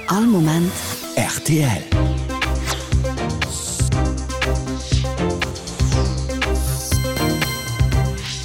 All Moment rtl.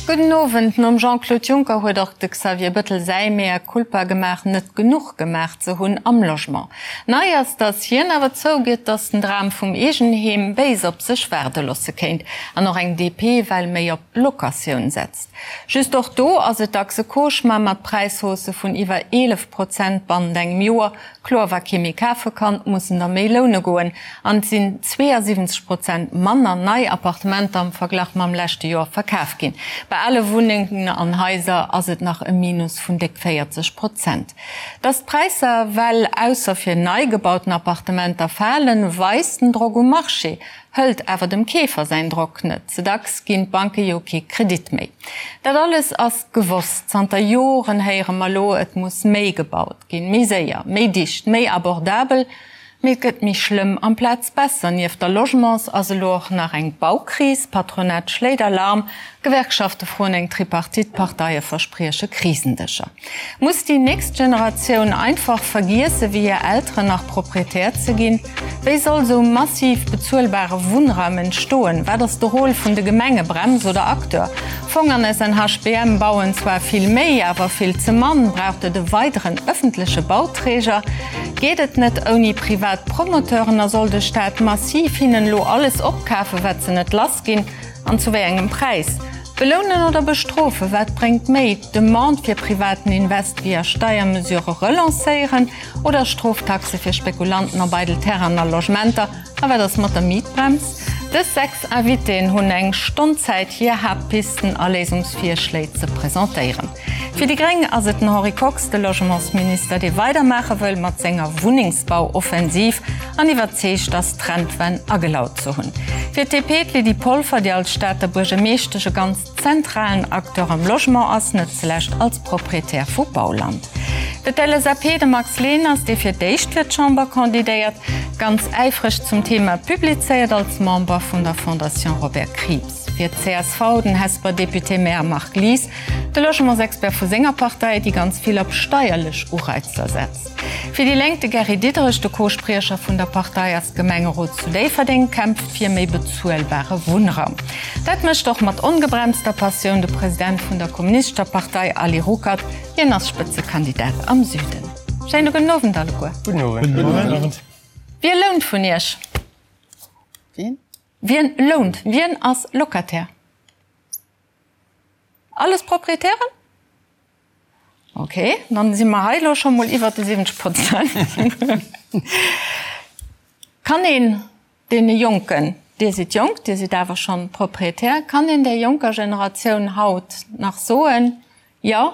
Gudden Owend. Nom Jean-Claude Juncker huet och de Xavier Bëttel säi Mea culpa gemaach, net genuch gemaach ze hunn am Logement. Nei ass, datt hien awer zougëtt, datt den Dram vum Eegenheem béis op sech waarde losse kéint an och eng DP well méi op Locatioun setzt. Just och do ass et dacks e Cauchemar mat Präishaussë vun iwwer 11 Prozent bannent engem Joer. Kloer, wa kee méi kafe kann, mussen der méi loune goen. An et sinn 72 Prozent manner nei Appartementer am Verglach mam leschte Joer verkaf ginn. Bei ale Wunnengen an Haiser ass et nach e Minus vun déck 40 Prozent. Dass d'Präisser well ausser fir nei gebauten Appartementer falen, weist den Drock um Marché. Hëlt awer dem Keefer säin Drock net. Ze dacks ginn d'Banke jo kee Kredit méi. Dat alles ass gewosst. Zanter Joren héiere mer lo, et muss méi gebaut ginn, méi séier, méi dicht, méi abordabel. Mee et gëtt méi schlëmm amplaz besser. Nieft der Logements ass elo och nach eng Baukris. D'Patronat schléit Alarm, Gewerkschafte froen eng Tripartite, d'Parteie versprieche Krisendëscher. Muss déi nächst Generatioun einfach vergiesse wéi hir Elteren nach Proprietär ze ginn? Wéi soll sou massiv bezuelbare Wunnraum entstoen? Wat ass de Rôle vun de Gemenge, Brems oder Acteur? Fong an SNHBM bauen zwar vill méi, awer vill ze mann. Braucht et e weideren ëffentleche Bauträger? Geet et net ouni privat Promoteuren a soll de Staat massiv hinnen elo alles opkafen, wat se net lass ginn? An zu wéi engem Präis? Belounen oder bestrofen, wat bréngt méi? D'Demande fir privaten Invest via Steiermesurë relancéieren oder Stroftaxe fir Spekulanten op eidel Terrainen a Logementer? A wat ass mat der Mietbrems? Dës 6 Invitéen hunn eng Stonn Zäit hir Haaptpisten a Léisungsvirschléi ze presentéieren. Fir déi gréng ass et den Henri Kox, de Logementsminister, dee weidermaache wëll mat senger Wunnengsbauoffensiv an iwwerzeegt ass, d'Trendwenn agelaut ze hunn. Fir d'DP d'Lydie Polfer, déi als Stater Buergermeeschtesch e ganz zentralen Acteur am Logement ass, net zulescht als Proprietär vu Bauland. Fir d'LSAP de Max Leners, dee fir d'éischt fir d'Chamber kandidéiert, ganz äifreg zum Thema publizéiert als Member vun der Fondation Robert Krieps. Fir d'CSV den Hesper Député-Maire Marc Lies, de Logementsexpert vu senger Partei, déi ganz vill op steierlech Ureizer setzt. Fir déi Lénk de Gary Diderich, de Co-Spriecher vun der Partei ass Gemengerot zu Déifferdeng, kämpft fir méi bezuelbare Wunnraum. Dat mécht och mat ongebremster Passioun de President vun der Kommunistescher Partei Ali Ruckert. Hien ass Spëtzekandidat am Süden. Schéine gudden Owend alleguer. Gudden Owend. Wie lount vun Iech? Wien? Wien lount? Wien ass Locataire? Alles Proprietären? Ok, dann si mer hei elo scho mol iwwert de 70 Prozent. Kann een deene Jonken, Dir sidd jonk, Dir sidd awer schonn Proprietär, kann een där jonker Generatioun haut nach soen, jo,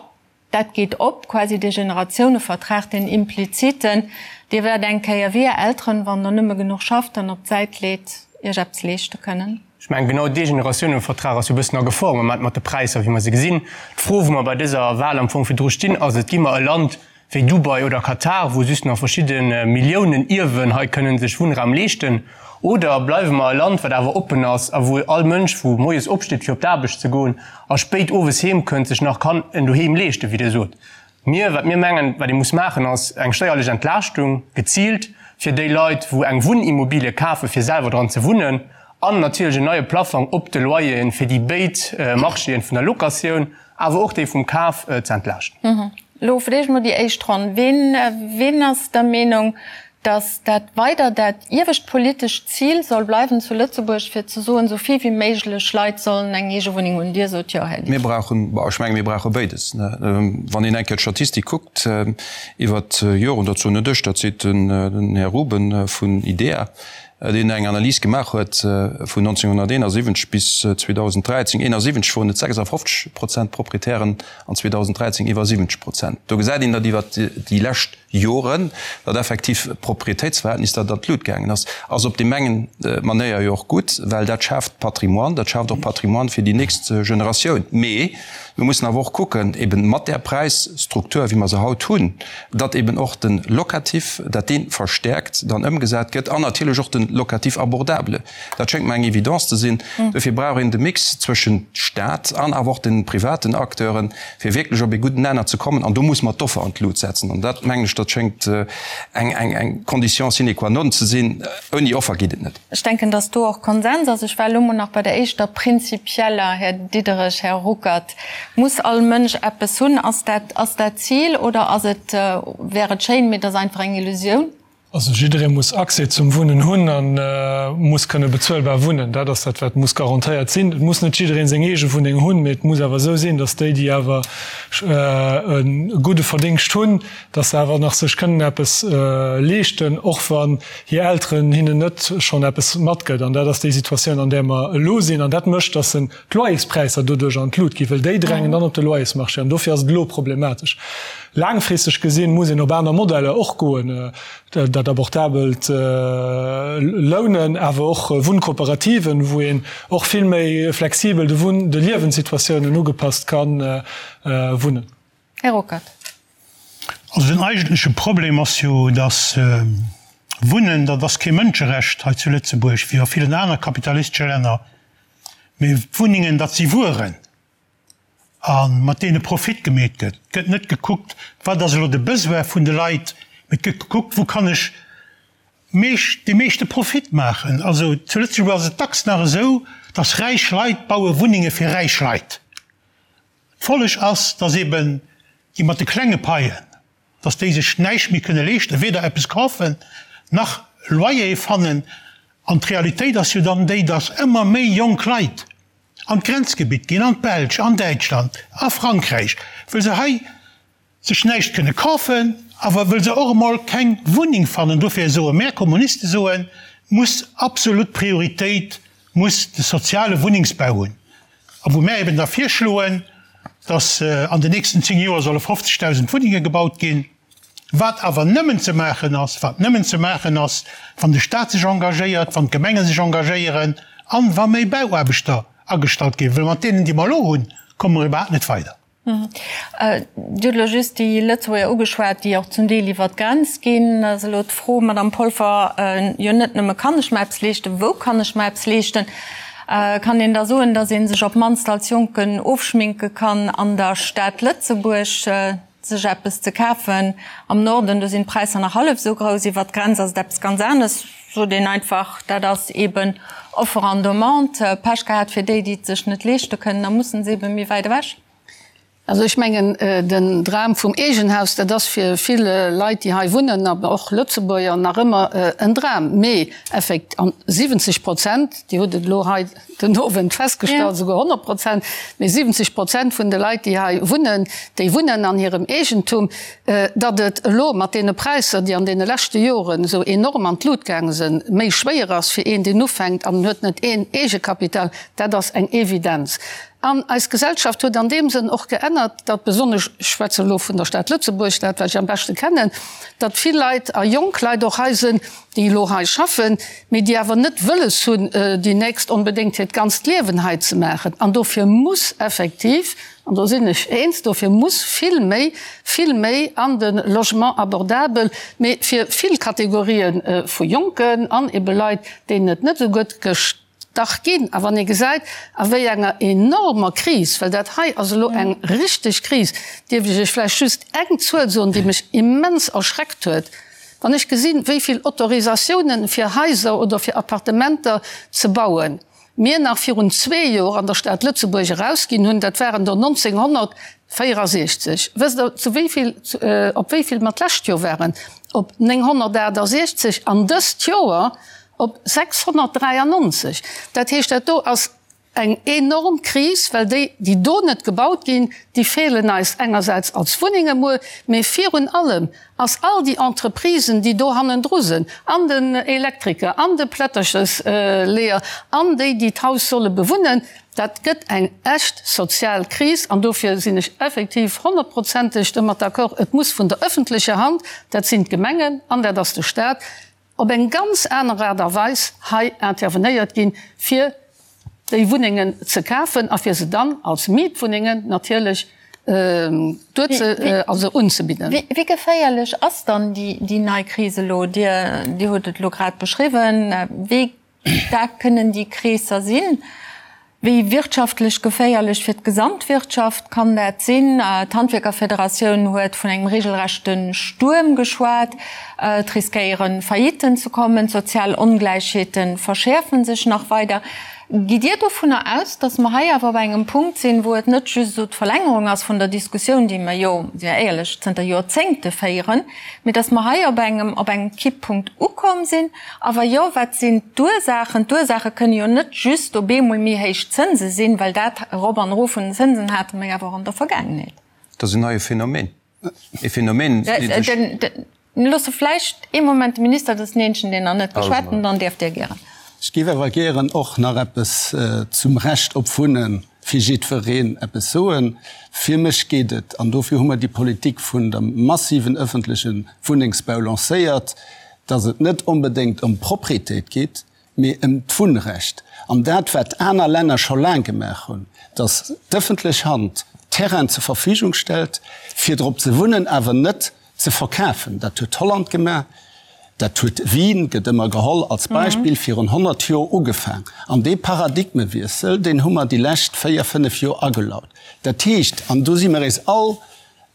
dat geet op, quasi dee Generatiounevertrag, deen impliziten, Dir wäert eng Kéier wéi Är Elteren, wann Der nëmme genuch schafft an op d'Säit leet, Iech eppes leeschte kënnen? Ech mengen, genau dee Generatiounevertrag ass jo e bëssen a Gefor am Moment mat de Präisser, wéi mer se gesinn. D'Fro, wou mer bei dëser Wahl am Fong virdru stinn, ass et, Gi mer e Land wéi Dubai oder Katar, wou just nach verschidde Milliounen Ierwen hei kënnen sech Wunnraum leeschten, oder bleiwe mer e Land, wat awer oppen ass a wou all Mënsch, wou moies opsteet, fir op d'Aarbecht ze goen a spéit owes heem kënnt, sech nach kann en Doheem leeschten, wéi Dir sot. Mir, wat mir mengen, wat ee muss maachen, ass eng steierlech Entlaaschtung, geziilt fir déi Leit, wou eng Wunnimmobilie kafen, fir selwer dran ze wunnen, an natierlech en neie Plaffong op de Loyeren, fir déi béid Marchéen vun der Locatioun, awer och déi vum Kaf ze entlaaschten. Elo vläicht mol déi éischt Ronn. Ween, ween ass der Meenung, dass dat weider dat iewescht politescht Zil soll bleiwen zu Lëtzebuerg, fir ze soen, esou vill wéi méiglech Leit sollen eng eege Wunneng hunn. Dir sot jo, Här Mir brauchen, bon, ech menge mir brauche béides. Wann een eng Kéier d'Statistik kuckt iwwert d'Joren, dat soen net ech, dat seet den Här Ruben vun IDEA, deen eng Analys gemaach huet vun 1971 bis 2013, 71 woren et 56 Prozent Proprietären an 2013 iwwer 70 Prozent. Do gesäit een, datt iwwert déi lescht Joren, datt effektiv d'Proprietéitsverhältnis, dat an d'Lut gaangen ass, ass op deem engen Manéier jo och gutt, well dat schaaft Patrimoine, dat schaaft och Patrimoine fir déi nächst Generatioun. Mee mir mussen awer och kucken, eben mat där Präisstruktur, wéi mer se haut hunn, datt eben och de Locatif, datt dee verstäerkt dann ëmgesat gëtt an natierlech och de. locatif abordable. Dat schéngt mer eng Evidence ze sinn. Dofir brauch een de Mix zwëschent Staat an awer och de privaten Acteuren, fir wierklech op ee gudden Nenner ze kommen. An do muss mer d'Offer an d'Lut setzen. An dat, mengen ech, dat schéngt eng, eng, eng Condition sine qua non ze sinn. Ouni Offer geet et net. Ech denken, dass do och Konsens ass. Ech war elo mol nach bei der éischter prinzipieller, Här Diderich, Här Ruckert. Muss all Mënsch eppes hunn? Ass dat, ass dat d'Zil oder ass et, wär et schéin, mee et ass einfach eng Illusioun? Also jidderee muss Accès zum Wunnen hunn a muss kënne bezuelbar wunnen. Dat ass dat, wat muss garantéiert sinn. Et muss net jidderee seng eege Wunneng hunn, mee et muss awer esou sinn, datt déi, déi awer e gudde Verdingscht hunn, datt se awer nach sech kënnen eppes leeschten, och wann hir Elteren hinnen net schonn eppes matgëtt. An dat ass déi Situatioun, an där mer elo sinn. An dat mécht, datt en d'Loyerspräisser doduerch an d'Lut ginn, well déi drängen dann op de Loyersmarché an dofir ass et elo problematesch. Laangfristeg gesinn muss een op aner Modeller och goen, dat abordabelt Lounen, awer och Wunnkooperativen, wou een och vill méi flexibel de Wunn-, de Liewenssituatiounen ugepasst ka wunnen. Här Ruckert. Also den eigentleche Problem ass jo, dass Wunnen, dat ass kee Mënscherecht hei zu Lëtzebuerg, wéi a villen aner kapitalistesche Länner. Mee d'Wunnengen, dat si Wueren, a mat deene Profit gemeet gëtt. Et gëtt net gekuckt, wat ass elo de Besoin vun de Leit, mee et gëtt gekuckt, wou kann ech meescht, dee meeschte Profit maachen. Also zu Lëtzebuerg ass et dacks nach esou, datt räich Leit baue Wunnenge fir räich Leit. D'Folleg ass, datt eben déi mat de klenge Paien, dass déi sech näischt méi kënne leeschten, weder eppes kafen nach Loyer fannen. An d'Realitéit ass jo dann déi, dass ëmmer méi jonk Leit an d'Grenzgebitt ginn, an d'Belsch, an Däitschland, a Frankräich, wëll se hei sech näischt kënne kafen, awer wëll se och emol keng Wunneng fannen. Dofir soe mär Kommuniste soen, muss absolut Prioritéit muss de soziale Wunnengsbau hunn. A wou mär eben da virschloen, dass an den nächsten 10 Joer solle 50.000 Wunnenge gebaut ginn, wat awer nëmmen ze maachen ass, wat nëmmen ze maachen ass, wann de Stat sech engagéiert, wann d'Gemenge sech engagéieren an wa méi Bauaarbechter agestallt ginn, well mat deenen, déi mer elo hunn, komme mer iwwerhaapt net weider. Dir hutt elo just déi Lëtzebuerger ugeschwat, déi och zum Deel iwwer d'Grenz ginn. Da ass elo d'Fro, Madamm Polfer, jo net nëmme kann ech mer eppes leeschten, wou kann ech mer eppes leeschten? Kann een da soen, datt ee sech op d'mannst als Jonken ofschminke kann an der Stad Lëtzebuerg, sech eppes ze kafen? Am Norden, do sinn d'Präisser nach hallef esou grouss, iwwer d'Grenz ass et eppes ganz anescht, sot een einfach, dat ass eeben Offre an Demande. Pech gehat fir déi, déi et sech net leeschte kënnen, da mussen se ebe méi wäit ewech. Also ech mengen, den Dram vum Eegenhaus, dat ass fir vill Leit, déi hei wunnen, an och Lëtzebuerger, nach ëmmer en Dram. Mee effekt, an 70 Prozent, Dir hutt et elo hei den Owend festgestallt, esouguer 100 Prozent, mee 70 Prozent vun de Leit, déi hei wunnen, déi wunnen an hirem Eegentum. Datt et elo mat deene Präisser, déi an deene leschte Joren esou enorm an d'Lut gaange sinn, méi schwéier ass fir een, deen ufänkt an en huet net een Eegekapital, dat ass eng Evidenz. An eis Gesellschaft huet an deem Sënn och geännert, datt besonnesch, ech schwätze elo vun der Stad Lëtzebuerg, dat wat ech am beschte kennen, datt vill Leit a jonk Leit och hei sinn, déi elo hei schaffen, mee déi awer net wëlles hunn, déi nächst onbedéngt hiert ganzt Liewen hei ze maachen. An dofir muss effektiv, an do sinn ech eens, dofir muss vill méi, vill méi an de Logement abordable, mee fir vill Kategorië vu Jonken an ebe Leit, deenen et net esou gutt gestach ginn. A wann ee gesäit, a wéi enger enormer Kris, well dat hei ass elo eng richteg Kris, dierf ech Iech vläicht just eng Zuel soen, déi mech immens erschreckt huet, Wann ech gesinn, wéi vill Autorisatiounen fir Haiser oder fir Appartementer ze bauen mir nach virun zwee Joer an der Stad Lëtzebuerg erausginn hunn, dat waren der 1964. Wësst Der, zu wéi vill, op wéi vill mer d'lescht Joer waren? Op 968 an dëst Joer op 693. Dat heescht, dat do ass Eng enorm Kris, well déi, déi do net gebaut ginn, déi feelen eis engersäits als Wunnenge muer, mee virun allem ass all déi Entreprisen, déi do hannendru sinn, an den Elektriker, an de Plätterchesleeër, an déi, déi d'Haus solle bewunnen, dat gëtt eng echt sozial Kris. An dofir sinn ech effektiv honnertprozenteg domat d'accord, et muss vun der öffentlecher Hand, dat sinn d'Gemengen an dat ass de Stat, op eng ganz aner Aart a Weis hei intervenéiert ginn, fir déi Wunnengen ze kafen a fir se dann als Mietwunnengen natierlech. Duerze, also unzebidden. Wéi geféierlech ass dann déi nei Kris elo? Dir hutt et elo grad beschriwwen. Wéi staark kënnen déi Kreesser sinn? Wéi wirtschaftlech geféierlech fir d'Gesamtwirtschaft kann dat sinn? D'Handwierkerfederatioun huet vun engem regelrechte Stuerm geschwat. Et riskéiere Faillitten ze kommen, d'sozial Ongläichheete verschäerfe sech nach weider. Gitt Dir dovunner aus, datt mer hei awer op engem Punkt sinn, wou et net just esou d'Verlängerung ass vun der Diskussioun, déi mer jo, si mer éierlech, zënter Joerzéngte féieren, mee datt mer hei op engem, op engem Kipppunkt ukomm sinn? A wa jo, wat sinn d'Ursaachen? D'Ursaache kënne jo net just op eemol méi héich Zënse sinn, well dat Erop an Erof vun den Zënsen hate mer jo awer och an der Vergaangenheet. Dat ass en neie Phänomen. E Phänomen, dee sech. Loosse vläicht ee Moment de Minister, dat ass den eenzegen, deen nach net geschwat huet, dann däerft Dir gären. Ech géif awer gären och nach eppes zum Recht op Wunne fir jiddwereen eppes soen. Fir mech geet et, an dofir hu mer déi Politik vun dem massiven öffentleche Wunnengsbau lancéiert, dass et net onbedéngt ëm Propriétéit geet, mee ëm d'Wunnrecht. An dat, wat aner Länner scho laang gemaach hunn, dass d'ëffentlech Hand Terrainen zur Verfügung stellt, fir drop ze wunnen, awer net ze verkafen. Dat huet Holland gemaach, dat huet Wien, gëtt ëmmer geholl als Beispill, virun 100 Joer ugefaang. An dee Paradigmewiessel, deen hu mer déi lescht véier, fënnef Joer agelaut. Dat heescht, an do si mer eis all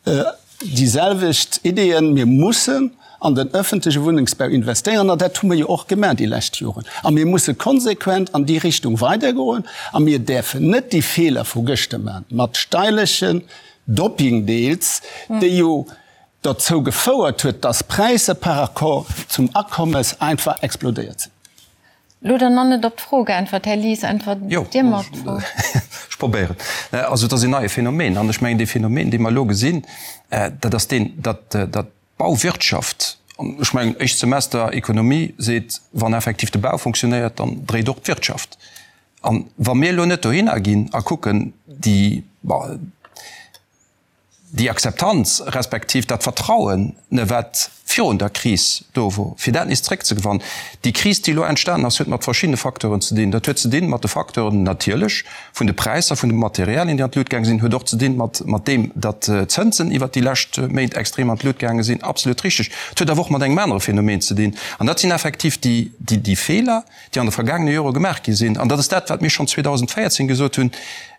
déi selwecht Ideeën, Mir mussen an den öffentleche Wunnengsbau investéieren, an dat hu mer jo och gemaach déi lescht Joren. A mir musse konsequent an déi Richtung weidergoen a mir däerfen net déi Feeler vu gëschter maachen, mat steierlechen Dopping deels, déi jo derzou gefouert huet, dass d'Präisser par rapport zum Akommes einfach explodéiert sinn. Lo dann nach net op d'Fro geäntwert, Här Lies, äntwert Dir mer op d'Fro. Ech probéieren. Also et ass en neie Phänomen. An ech mengen, dee Phänomen, dee mer elo gesinn, dat ass deen, datt d'Bauwirtschaft, an ech mengen, éischt Semester Ekonomie seet, wann effektiv de Bau funktionéiert, dann dréit och d'Wirtschaft. A wa mir elo net dohinner ginn a kucken, déi, bon, déi Akzeptanz respektiv dat Vertrauen, wat virun der Kris do wor, fir dat nees zréckzegewannen. Déi Kris, déi elo entstanen ass, huet mat verschiddene Facteuren ze dinn. Dat huet ze dinn mat de Facteuren natierlech vun de Präisser vun de Materialien, déi an d'Lut gaange sinn, huet och ze dinn mat mat deem, datt d'Zënsen iwwert déi lescht Méint extrem an d'Lut gaange sinn, absolut richteg. Et huet awer och mat engem anere Phänomen ze dinn, an dat sinn effektiv déi déi Feeler, déi an de vergaangene Jore gemaach gi sinn. An dat ass dat, wat mir schonn 2014 gesot hunn,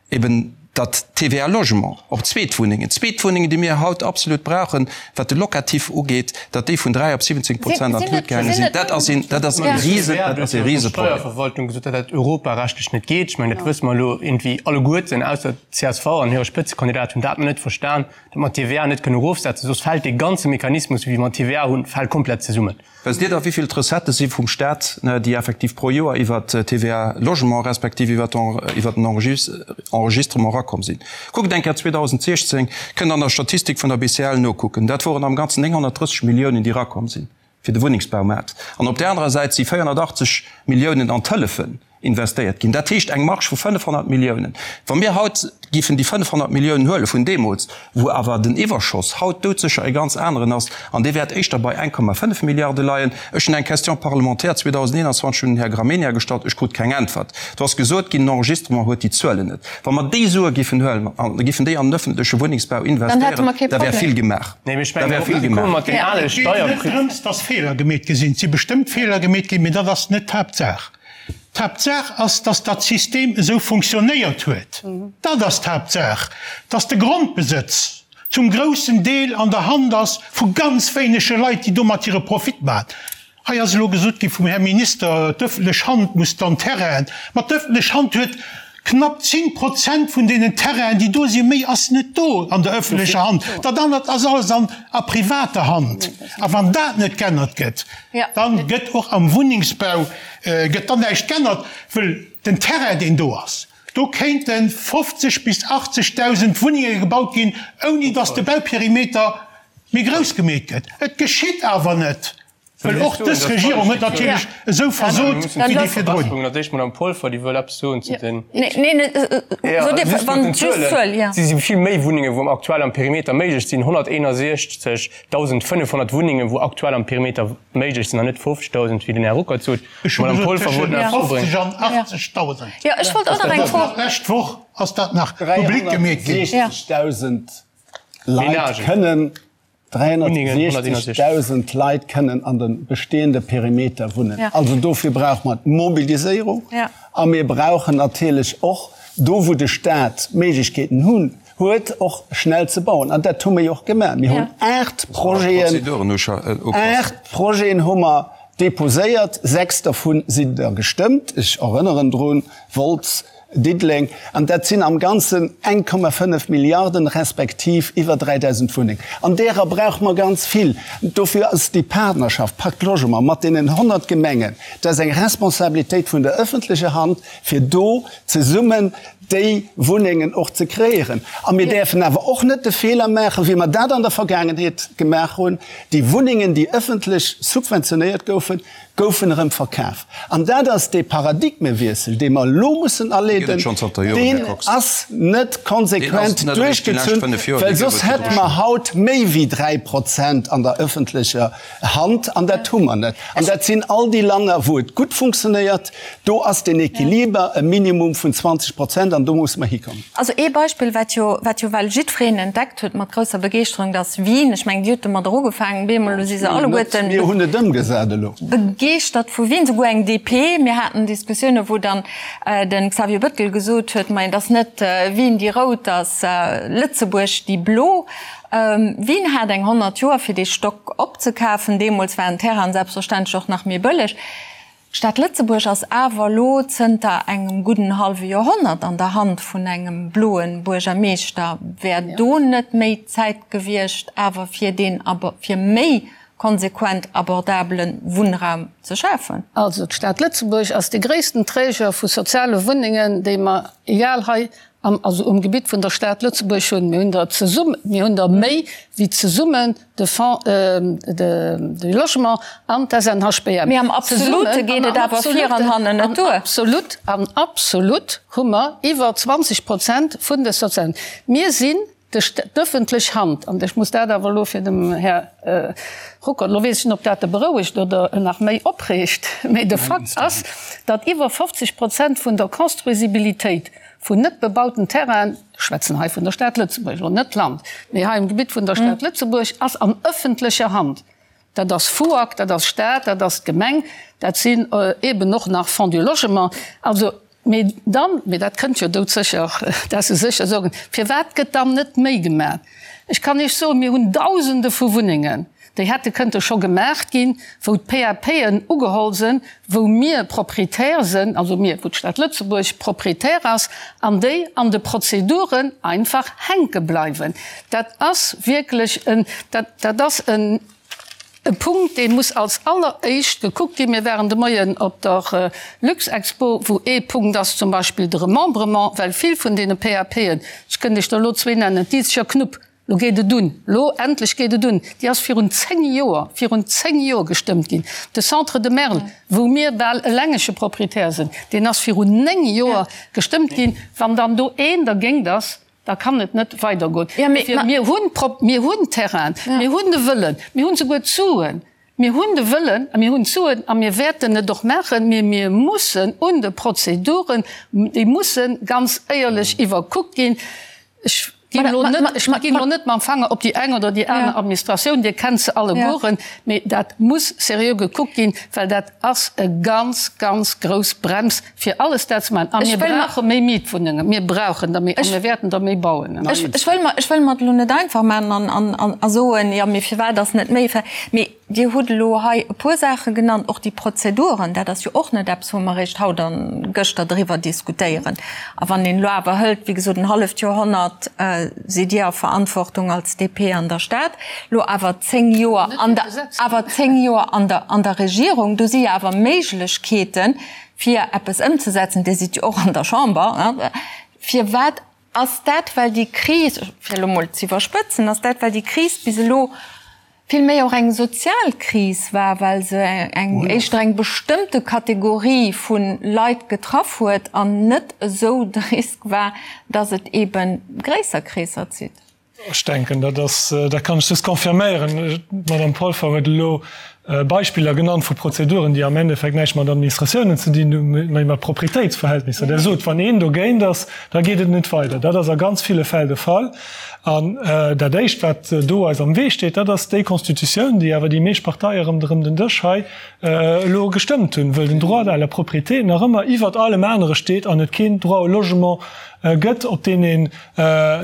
eben, datt d'TVA Logement op Zweetwunnengen, Zweetwunnengen, déi mir haut absolut brauchen, wat de Locatif ugeet, datt déi vun 3 op 17 Prozent an d'Lut gaange sinn, dat ass een, dat ass e rise, dat ass e Riseproblem. D'Steierverwaltung gesot, datt dat europarechtlech net geet. Ech mengen, dat wësse mer elo iergendwéi alleguerten, ausser d'CSV an hire Spëtzekandidat hunn dat nach net verstan, datt mer d'TVA net kënnen erofsetzen, soss fält dee ganze Mechanismus, wéi mer d'TVA hunn, fält komplett zesummen. Wësst Dir da, wéi vill d'Recettë si vum Stat, déi effektiv pro Joer iwwert d'TVA Logement respektiv iwwert den Enregistrement erakomm sinn? Kuckt eng Kéier 2016, kënnt an der Statistik vun der BCL nokucken, dat woren am Ganzen 930 Milliounen, déi erakomm sinn fir de Wunnengsbaumaart. An op där anerer Säit si 480 Milliounen an d'Hëllefen. investéiert ginn. Dat heescht eng Marge vu 500 Milliounen. Wa mir haut géifen déi 500 Milliounen huele vun deemools, wou awer den Iwwerschoss haut doudsécher e ganz aneren ass, an dee wäert éischter bei 1,5 Milliarde leien. Ech hunn eng Question parlementaire 2021 un den Här Gramegna gestallt, ech krut keng Äntwert. Do ass gesot ginn, den Enregistrement huet déi Zuelen net. Wa mer déi Sue géifen huelen an géifen déi an den öffentleche Wunnengsbau investéieren, da wär vill gemaach. Da wär vill gemaach. Et geet net drëms, dass Feeler gemeet gi sinn. Et si bestëmmt Feeler gemeet ginn, mee dat ass net d'Haaptsaach. D'Haaptsaach ass, dass dat System esou funktionéiert huet. Dat ass d'Haaptsaach, dass de Grondbesëtz zum groussen Deel an der Hand ass vu ganz wéinege Leit, déi domat hire Profit maachen. Hei ass elo gesot gi vum Här Minister, d'öffentlech Hand muss dann Terrainen. Ma d'öffentlech Hand huet knapp 10 Prozent vun deenen Terrainen, déi do sinn. Méi ass net do an der öffentlecher Hand. Dat anert ass alles an a privater Hand. A wann dat net g'ännert gëtt, dann gëtt och am Wunnengsbau gëtt dann näischt g'ännert, wëll den Terrain, deen do ass, do kéinte 50 bis 80.000 Wunnenge gebaut ginn, ouni datt de Bauperimeter méi grouss gemeet gëtt. Et geschitt awer net. Well och dës Regierung huet natierlech esou versot wéi déi virdrun. D'Madame Polfer, déi wëll eppes soen zu den. Si si vill méi Wunnengen, wou aktuell am Perimeter méiglech sinn, 161.500 Wunnengen, wou aktuell am Perimeter méiglech sinn, an net 50.000, wéi den Här Ruckert sot. Ech hu gesot tëschent 50 an 80.000. D'lescht Woch ass dat nach public gemeet ginn. 360.000 Leit kënnen 360.000 Leit kënnen an de bestehende Perimeter wunnen. Also dofir brauche mer d'Mobiliséierung a mir brauchen natierlech och do, wou de Stat Méiglechkeeten hunn, huet, och schnell ze bauen. An dat hu mer jo och gemaach. Mir hunn aacht Projeten, aacht Projeten hu mer deposéiert, sechs dervu sinn der gestëmmt. Ech erënneren drun, Wolz, Diddeleng, an dat sinn am Ganzen 1,5 Milliarden, respektiv iwwer 3.000 Wunnengen. An därer brauche mer ganz vill. Dofir ass déi Partnerschaft Pacte Logement mat deenen 100 Gemengen, dat ass eng Responsabilitéit vun der öffentlecher Hand, fir do zesummen déi Wunnengen och ze kreéieren. A mir däerfen awer och net de Feeler maachen, wéi mer dat an der Vergaangenheet gemaach hunn, déi Wunnengen, déi öffentlech subventionéiert goufen, goufen erëm verkaf. An dat ass dee Paradigmewiessel, dee mer elo mussen aleeden, deen ass net konsequent duerchgezunn, well soss hätte mer haut méi wéi 3 Prozent an der öffentlecher Hand, an dat hu mer net. An dat sinn all déi Länner, wou et gutt funktionéiert, do ass den Equiliber e Minimum vun 20 Prozent, an do musse mer hikommen. Also ee Beispill, wat jo, wat jo well jiddwereen entdeckt huet mat grousser Begeeschterung, dat ass Wien. Ech mengen, Dir hutt domadder ugefaangen, bemol elo si se alleguerten. Mir hunn et ëmgesat elo. Begeeschtert vu Wien, souguer eng DP. Mir haten Diskussiounen, wou dann de Xavier Bettel gesot huet, Majo, et ass net Wien déi rout, et ass Lëtzebuerg déi blo. Wien hat eng 100 Joer, fir dee Stock opzekafen. Deemools waren d'Terrainen selbstverständlech och nach méi bëlleg. D'Stad Lëtzebuerg ass awer elo zënter engem gudden hallwe Joerhonnert an der Hand vun engem bloe Buergermeeschter. Wär do net méi d'Zäit gewiescht, awer fir deen, fir méi konsequent abordabele Wunnraum ze schafen? Also d'Stad Lëtzebuerg ass de gréissten Träger vu soziale Wunnengen, déi mer, egal hei am, also um Gebitt vun der Stad Lëtzebuerg hunn. Mir hunn der zesummen, mir hunn der méi wéi zesummen de Fonds de Logement an d'SNHBM. Mee am Absolute geet et awer vir an hannen net duer. Absolut, an absolut hu mer iwwer 20 Prozent vun de sozialen. Mir sinn d'ëffentlech Hand, an ech muss dat awer elo fir dem Här Ruckert, elo weess ech net, ob dat e berouegt oder en nach méi opreegt, mee de Fakt ass, datt iwwer 50 Prozent vun der Construisibilitéit vun net bebauten Terrainen, ech schwätzen hei vun der Stad Lëtzebuerg, elo net d'Land, mee hei um Gebitt vun der Stad Lëtzebuerg, ass an ëffentlecher Hand. Dat ass FUAG, dat ass Stad, dat ass d'Gemeng, dat sinn eeben och nach Fonds du Logement. Also, mee dann, mee dat kënnt jo doudsécher, dat se sécher soen, firwat gëtt dann net méi gemaach? Ech kann Iech soen, mir hunn Dausende vu Wunnengen, déi hätte kënnte scho gemaach ginn, wou d'PAPen ugeholl sinn, wou mir Proprietär sinn, also mir, wou d'Stad Lëtzebuerg Proprietär ass, an déi an de Prozeduren einfach hänke bleiwen. Dat ass wierklech en, dat, dat ass en e Punkt, dee muss als alleréischt gekuckt ginn. Mir waren de Moien op der Luxexpo, wou ee Punkt ass zum Beispill de Remembrement, well vill vun deene PAPen, ech kënnt Iech der elo zwee nennen, d'Izeger Knupp, Lo geet et un, lo endlech geet et un, déi ass virun 10 Joer, virun 10 Joer gestëmmt ginn. De Centre de Merl, wou mir bal elengege Proprietär sinn, deen ass virun 9 Joer gestëmmt ginn. Wann dann do een dergéint ass, da kann et net weidergoen. Dofir, mir hunn, mir hunn Terrainen, mir hunn de Wëllen, mir hunn souguer d'Suen, Mir hunn de Wëllen a mir hunn d'Suen a mir wäerten et och maachen, mee mir mussen un de Prozeduren, déi musse ganz éierlech iwwerkuckt ginn. Ech ginn elo net, ech ginn elo net mam Fanger op déi eng oder déi aner Administratioun, Dir kennt se allegueren, mee dat muss seriö gekuckt ginn, well dat ass e ganz, ganz grouss Brems fir alles dat ze maachen. A mir brauche méi Mietwunnengen, mir brauchen der méi a mir wäerten der méi bauen. Ech wëll mer, ech wëll mer et elo net einfach maachen an a soen, jo, mee firwat ass net méi? Mee Dir hutt elo hei e puer Saache genannt, och déi Prozeduren, dat ass jo och net eppes, wou mer eréischt haut a gëschter driwwer diskutéieren. A wann een elo awer hëlt, wéi gesot, en halleft Joerhonnert sidd Dir a Verantwortung als DP an der Stad, elo awer 10 Joer an der, awer 10 Joer an der, an der Regierung, do si jo awer Méiglechkeeten, fir eppes ëmzesetzen, Dir sidd jo och an der Chamber, firwat ass dat, well déi Kris, fir elo mol ze iwwerspëtzen, ass dat, well déi Kris bis elo. Vill méi och eng sozial Kris war, well se eng éischter eng bestëmmte Kategorie vu Leit getraff huet an net esou de Risk war, datt et eebe gréisser Kreesser zitt. Ech denken, dat ass, dat kann ech just confirméieren. D'Madame Polfer huet elo Beispiller genannt vu Prozeduren, déi am Endeffekt näischt mat Administratiounen ze dinn hunn, mä mat Proprietéitsverhältnisser. Der sot, wann een dogéint ass, da geet et net weider. Dat ass a ganz ville Fäll de Fall. An dat Éischt, wat do eis am Wee steet, dat ass déi Constitutioun, déi awer déi meescht Parteie ronderëm den Dësch hei elo gestëmmt hunn, wëll den Droit à la propriété nach ëmmer iwwert allem anere steet an et keen Droit au logement gëtt, op deen een,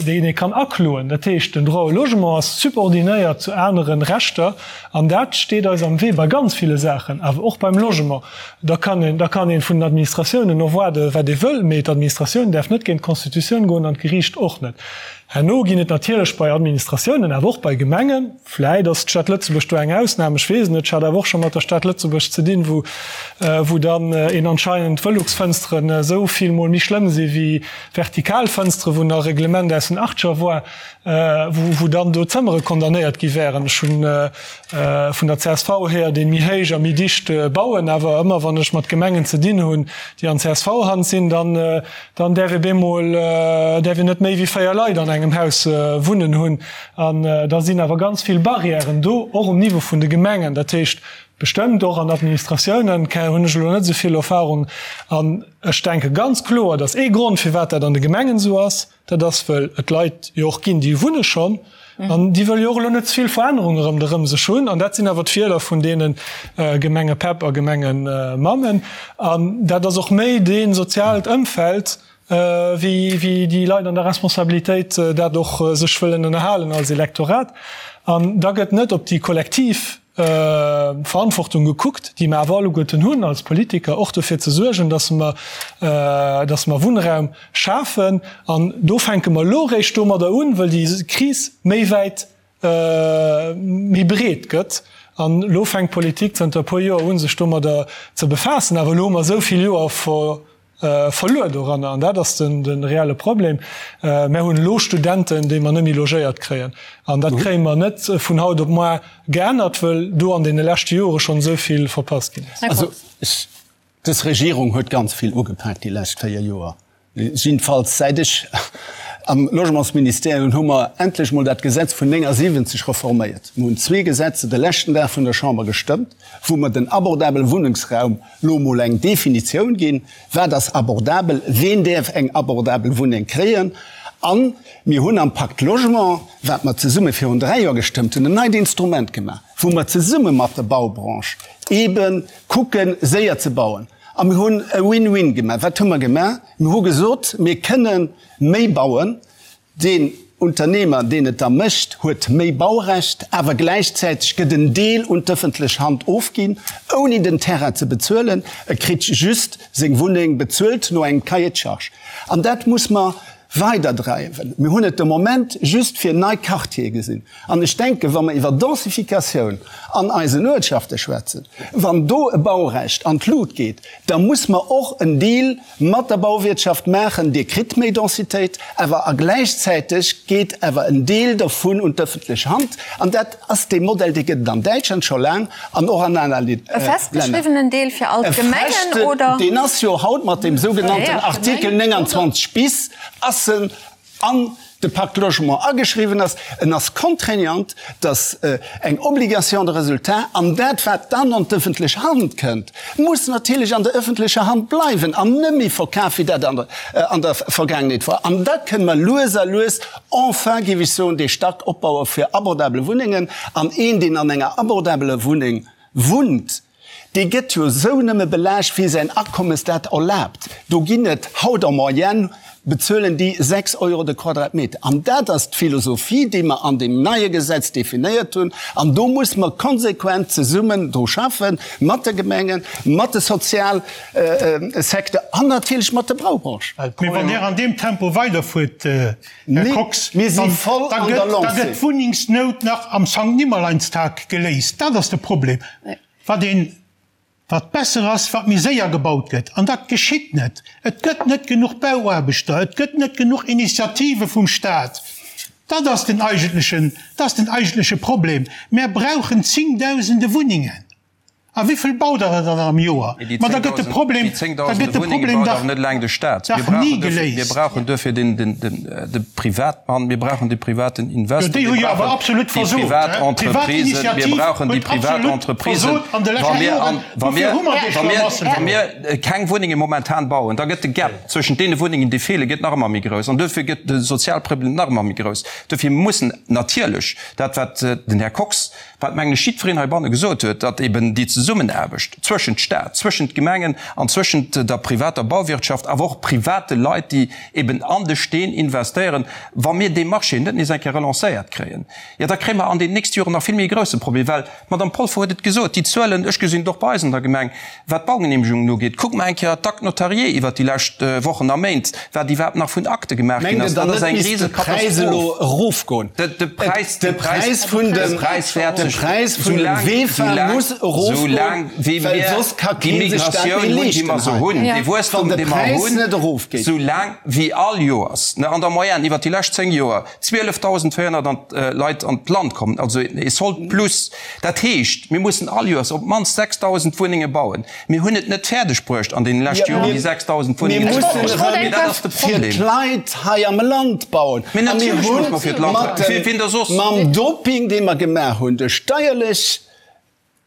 deen ee kann akloen. Dat heescht, den Droit au logement ass subordinéiert zu anere Rechter an dat steet eis am Wee bei ganz ville Saachen, awer och beim Logement. Da kann een, da kann ee vun den Administratiounen erwaarde wat ee wëll, mee d'Administratioun däerf net géint d'Constitutioun goen an d'Geriicht och net. Herno ginn et natierlech bei Administratiounen, awer och bei Gemengen, vläit ass d'Stad Lëtzebuerg do eng Ausnam, ech weess et net, ech hat awer och scho mat der Stad Lëtzebuerg ze dinn, wou, wou dann een anscheinend Velux-Fënsteren esou vill mol méi schlëmm si wéi vertikal Fënsteren, wou nach e Reglement aus den Achtger war, wou, wou dann do Zëmmere condamnéiert gi wären. Ech hunn vun der csv hier, déi méi héich a méi dicht bauen, awer ëmmer wann ech mat Gemengen ze dinn hunn, déi an CSV-Hand sinn, dann, dann däerf ee bemol, däerf een net méi wéi 4 Leit an engem Haus wunnen hunn. An da sinn awer ganz vill Barrièren do, och um Niveau vun de Gemengen. Dat heescht, bestëmmt och an Administratiounen, hunn ech elo net esou vill Erfahrung. An ech denke ganz kloer, dass ee Grond, firwat dat an de Gemengen esou ass, Dat ass, wëll et Leit jo och ginn, déi wunne schonn an déi wëlle jo och elo net ze vill Verännerunge ronderëm sech hunn. An dat sinn awer d'Wieler vun deene Gemengepäpp a Gemengemammen. An dat ass och méi dee soziaalt Ëmfeld, wéi déi Leit an der Responsabilitéit dat och sech wëllen ënnerhalen als Elektorat. An da gëtt net op déi kollektiv Verantwortung gekuckt, déi mer awer alleguerten hunn als Politiker, och dofir ze suergen, dass mer, dass mer Wunnraum schafen. An do fänke mer elo eréischt domadder un, wëll déi Kris méi wäit, méi breet gëtt. An elo fänkt d'Politik zënter e puer Joer u sech domadder ze befaassen. Awer elo hu mer esou vill Joer verluer doranner, an dat ass de reelle Problem. Mär hunn elo Studenten, déi mer net méi logéiert kréien, an dat kréie mer net vun haut op moar geännert, wëll do an deene leschte Jore schonn esou vill verpasst ginn ass. Also, dës Regierung huet ganz vill ugepak déi lescht 4 Joer. Jiddefalls säit ech am Logementsministère hunn, hu mer endlech mol dat Gesetz vun 79 reforméiert. Mir hunn zwee Gesetze de leschten Dag vun der Chamber gestëmmt, wou mer den abordabele Wunnengsraum Lo mol eng Definitioun ginn, Wat ass abordabel? Ween däerf eng abordabel Wunneng kréien? A mir hunn am Pacte Logement, wat mer zesumme virun 3 Joer gestëmmt hunn, en neit Instrument gemaach, wou mer zesumme mat der Baubranche eebe kucken, séier ze bauen. A mir hunn e Win-win gemaach. Wat hu mer gemaach? Mir hu gesot, mir kënne méi bauen, Deen Unternehmer, deen et da mécht, huet méi Baurecht, awer gläichzäiteg gëtt en Deel un d'ëffentlech Hand ofginn, ouni den Terrain ze bezuelen. E kritt just seng Wunneng bezuelt no engem Cahier de charges. An dat muss mer weiderdreiwen. Mir hunn et de Moment just fir nei Quartiere gesinn. An ech denken, wa mer iwwer Densificatioun an eisen Uertschafte schwätzen, wann do e Baurecht an d'Lut geet, da muss mer och en Deal mat der Bauwirtschaft maachen, Dir kritt méi Densitéit, awer a gläichzäiteg geet awer en Deel dervun un d'ëffentlech Hand. An dat ass dee Modell, dee gëtt et an Däitschland scho laang an och an aner Länner. E festgeschriwwenen Deel fir all d'Gemengen, oder? Deen ass jo haut mat deem sougenannten Artikel 29 bis ass en an de Pacte Logement ageschriwwen ass, en ass contraignant, dass eng Obligation de résultat, an dat wat dann an d'ëffentlech Hand kënnt, muss natierlech an der ëffentlecher Hand bleiwen an net méi verkaf, wéi dat an der Vergaangenheet war. An da kënne mer lues a lues enfin, géif ech soen, dee Stack opbaue fir abordabel Wunnengen. An een, deen an enger abordabeler Wunneng wunnt, Dee gëtt jo esou nëmme belaascht, wéi säin Akommes dat erlaabt. Do ginn et haut en moyenne, bezuelen déi 6 Euro de Quadratmeter. An dat ass d'Philosophie, déi mer an deem neie Gesetz definéiert hunn. An do muss mer konsequent zesummen dru schaffen, mat de Gemengen, mat de Sozialsecteur an natierlech mat der Baubranche. Mee wann Dir an deem Tempo weiderfuert, Här Kox, da gëtt d'Wunnengsnout nach am Sankt-Nimmerleinstag geléist. Dat ass de Problem. Wat een, wat besser ass, wat méi séier gebaut gëtt. An dat geschitt net. Et gëtt net genuch Bauaarbechter, et gëtt net genuch Initiative vum Staat. Dat ass den eigentlechen, dat ass den eigentleche Problem. Mär brauchen zéngdausende Wunnengen. A wéivill baut Der dann am Joer? Ma da gëtt de Problem, da gëtt de Problem dach dach ni geléist. Mir brauchen duerfir den, den, den, de Privatmann, mir brauchen de privaten Investor, mir brauchen déi privat Entreprisen, mir brauchen déi privat Entreprisen. Wa mir, wa mir, wa mir, wa mir keng Wunnenge momentan bauen, da gëtt de Gap zwëschent deene Wunnengen, déi feelen, gëtt nach ëmmer méi grouss. An duerfir gëtt de Sozialproblem nach ëmmer méi grouss. Duerfir mussen natierlech dat, wat den Här Kox, wat, mengen ech, jiddwereen heibanne gesot huet, datt eben déi Zesummenaarbecht zwëschent Stat, zwëschent Gemengen an zwëschent der privater Bauwirtschaft, awer och private Leit, déi eben an de Steen investéieren, wa mir dee Marché net nees eng Kéier relancéiert kréien, jo da kréie mer an den nächste Joren nach vill méi e grousse Problem, well d'Madame Polfer huet et gesot, déi Zuelen, ech gesinn et och bei eis an der Gemeng, Wat d'Baugenehmegungen ugeet, kuckt mer eng Kéier d'Actes notariés iwwert déi lescht Wochen a Méint, wat iwwerhaapt nach vun Akte gemaach ginn ass. Dat ass eng Risekatastroph. De Präis, de Präis vun de Präis wäert sech, soulaang, soulaang wéi mir déi Migratioun hunn, déi mer se hunn, dee Wuesstum, dee mer hunn, soulaang wéi all Joers, an der Moyenne iwwert déi lescht 10 Joer, 12.400 Leit an d'Land kommen, also e Solde plus. Dat heescht, mir mussen all Joers op d'mannst 6.000 Wunnenge bauen. Mir hunn et net fäerdeg bruecht an deene leschte Joren déi 6.000 Wunnengen ze bauen. Mee dat ass de Problem. Fir d'Leit hei am Land bauen. Mee natierlech musse mer fir d'Land bauen. Fir wien da soss? Mam Doping, dee mer gemaach hunn, de steierlech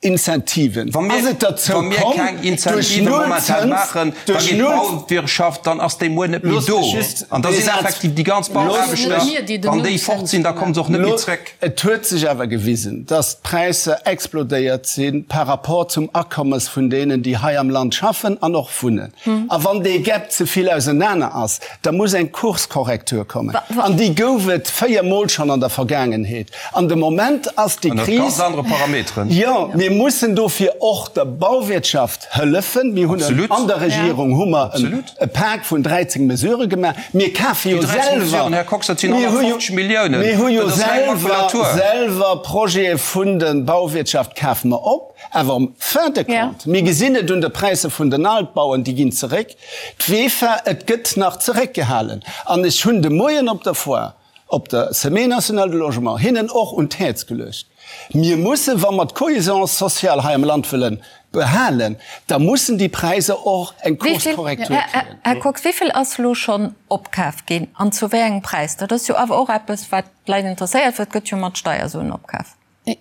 Incentiven, Wa mir, ass et derzou wa mir komm, keng duerch Incentive momentan Nullzëns, maachen, da duerch geet Null. d'Bauwirtschaft, dann ass déi muer net méi Loosst do. mech just An da dee sinn Saz, effektiv déi ganz loosst Bauaarbechter, mech, wann déi fort sinn, da komme se och net méi zréck. Et huet sech awer gewisen, dass d'Präisser explodéiert si par rapport zum Akommes vun deenen, déi hei am Land schaffen an och wunnen. A wann dee Gap ze vill ausenaner ass, da muss eng Kurskorrektur kommen. An déi gouf et véiermol schonn an der Vergaangenheet. An de Moment ass déi Ënnert Kris. ganz anere Parameteren. Jo, mir mussen dofir och der Bauwirtschaft hëllefen. Mir hunn Absolut. an der Regierung hu mer Absolut. e Pak vun 13 Mesurë gemaach. Mir kafe jo Déi 13 selwer, Mesuren, Här Kox, dat sinn mir hu jo, 150 Milliounen. mir hu jo Dat ass reng selwer, Makulatur. selwer Projete vun der Bauwirtschaft kafe mer op. Awer am fin de compte, mir gesinn et un de Präisser vun den Altbauen, déi ginn zeréck. D'WEFA, et gëtt nach zeréckgehalen. An ech hunn de Moien op der Foire, op der Semaine nationale du logement hinnen och un d'Häerz geluecht, Mir mussen, wa mer d'Cohésion sociale hei am Land wëlle behalen, da mussen déi Präisser och eng Kurskorrektur kréien. Här Kox, wéi vill ass elo schonn opkaf ginn an zu wéi engem Präis? Dat ass jo awer och eppes, wat d'Leit interesséiert, well et gëtt jo mat Steiersuen opkaf. Et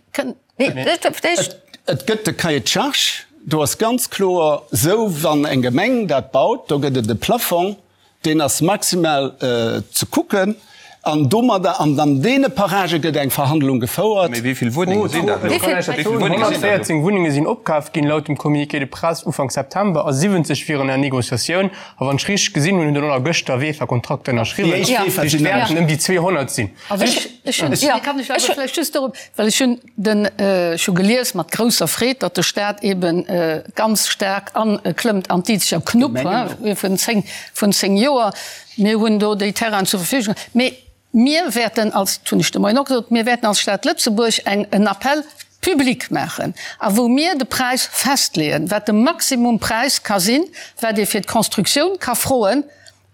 gëtt de Cahier de charges, do ass ganz kloer esou, wann eng Gemeng dat baut, do gëtt et e Plafong, deen ass maximal ze kucken an domadder an an deene Paragë gëtt eng Verhandlung gefouert. Mee wéi vill Wunnenge sinn dat elo? Wéi vill Wunnenge sinn dat elo? 114 Wunnenge sinn opkaf ginn, laut dem Communiqué de presse Ufank September, a 70 wieren en Négociatioun. A wann ech richteg gesinn hunn, hunn der elo gëschter WEFA-Kontrakter ënnerschriwwen. Déi éischt WEFA sinn Et wäerten ëm déi 200 sinn. Also ech, ech hunn, ja, kann ech awer vläicht just dorop, well ech hunn den, ech hu gelies mat grousser Freed, datt de Stat eeben ganz staark aklëmmt an d'Izeger Knupp vun 10, vun 10 Joer. Mir hunn do déi Terrainen zur Verfügung. Mee mir wäerten als, dat hunn ech de Moien och gesot, mir wäerten als Stad Lëtzebuerg eng, en Appel public maachen a wou mir de Präis festleeën, wat de Maximumpräis ka sinn, wat ee fir d'Constructioun ka froen,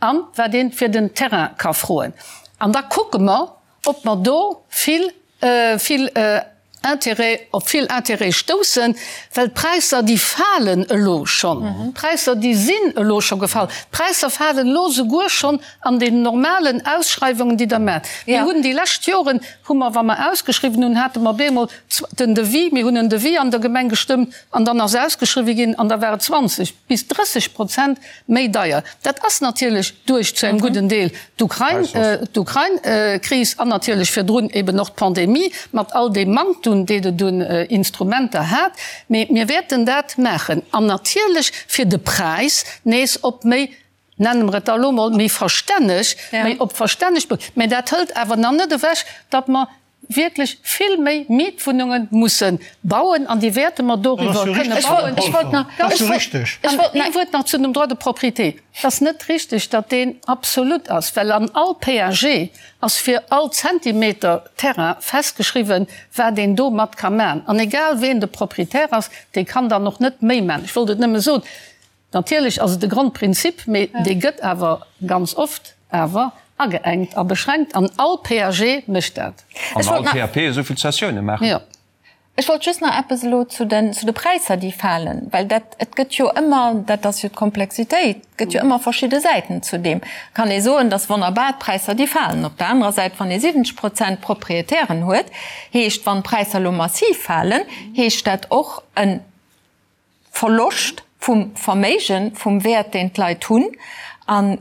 A wat ee fir den Terrain ka froen. An da kucke mer, ob mer do vill, vill Intérêt, op vill Intérêt stoussen, well d'Präisser, déi falen elo schonn. D'Präisser, déi sinn elo scho gefall. D'Präisser falen elo souguer schonn an den normalen Ausschreiwungen, déi Der maacht. Mir hunn déi lescht Joren, hu mer, wa mer ausgeschriwwen hunn, hate mer bemol den Devis, mir hunn en Devis an der Gemeng gestëmmt an dann ass ausgeschriwwen ginn an da war et 20 bis 30 Prozent méi deier. Dat ass natierlech duerch zu engem gudden Deel d'Ukrain-Kris an natierlech virdrun eben och d'Pandemie mat all deem Manktum, deen et un Instrumenter hat. Mee mir wäerten dat maachen an natierlech fir de Präis nees op méi, nenne mer et da elo mol, méi verstänneg, méi op verstänneg, mä dat hëlt awer nach net ewech, datt mer wierklech vill méi Mietwunnunge musse bauen an déi wäerte mer doriwwer kënne bauen. Ech wollt nach, ech wollt ee Wuert nach zu dem Droit de propriété. Et ass net richtig, datt deen absolut ass, well an all PAG ass fir all Zentimeter Terrain festgeschriwwen, wat een domat ka maachen. An egal ween de Propriétaire ass, dee kann dann och net méi maachen. Ech wollt et nëmme soen. Natierlech ass et e Grondprinzip, mee dee gëtt awer ganz oft awer. Ageengt a beschränkt an all PAG mécht dat. An all PAP esou vill Cessioune maachen. Jo. Ech wollt just nach eppes elo zu den, zu de Präisser, déi falen, well dat, et gëtt jo ëmmer, dat ass jo d'Komplexitéit, et gëtt jo ëmmer verschidde Säiten zu deem. Kann ee soen, dass wonnerbar, d'Präisser, déi falen. Op der anerer Säit, wann ee 70 Prozent Proprietären huet, heescht, wann d'Präisser elo massiv falen, heescht dat och e Verloscht vum Verméigen, vum Wäert, deen d'Leit hunn. An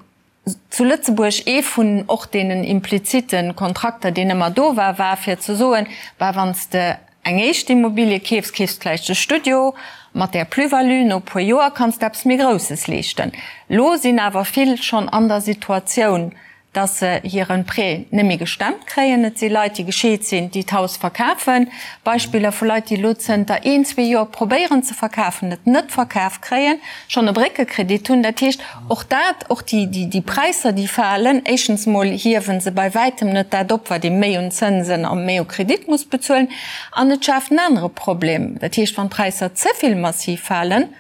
zu Lëtzebuerg, ee vun och deenen implizite Kontrakter, deen ëmmer do war, war fir ze soen, Bah, wann s de eng éischt Immobilie keefs, keefs de vläicht e Studio, mat där Plus-value no e puer Joer kanns de eppes méi Grousses leeschten. Lo sinn awer vill schonn an der Situatioun, dass se hire Prêt net méi gestemmt kréien. Et si Leit, déi gescheet sinn, déi d'Haus verkafen. Beispiller vu Leit, déi elo zënter een, zwee Joer probéieren ze verkafen, et net verkaf kréien, schonn e Bréckekredit hunn. Dat heescht, och dat, och déi Präisser, déi falen, éischtens emol hiewe se bei wäitem net dat op, wat ee méi un Zënsen a méi u Kredit muss bezuelen. An et schaaft en anere Problem. Dat heescht, wann d'Präisser ze vill massiv falen,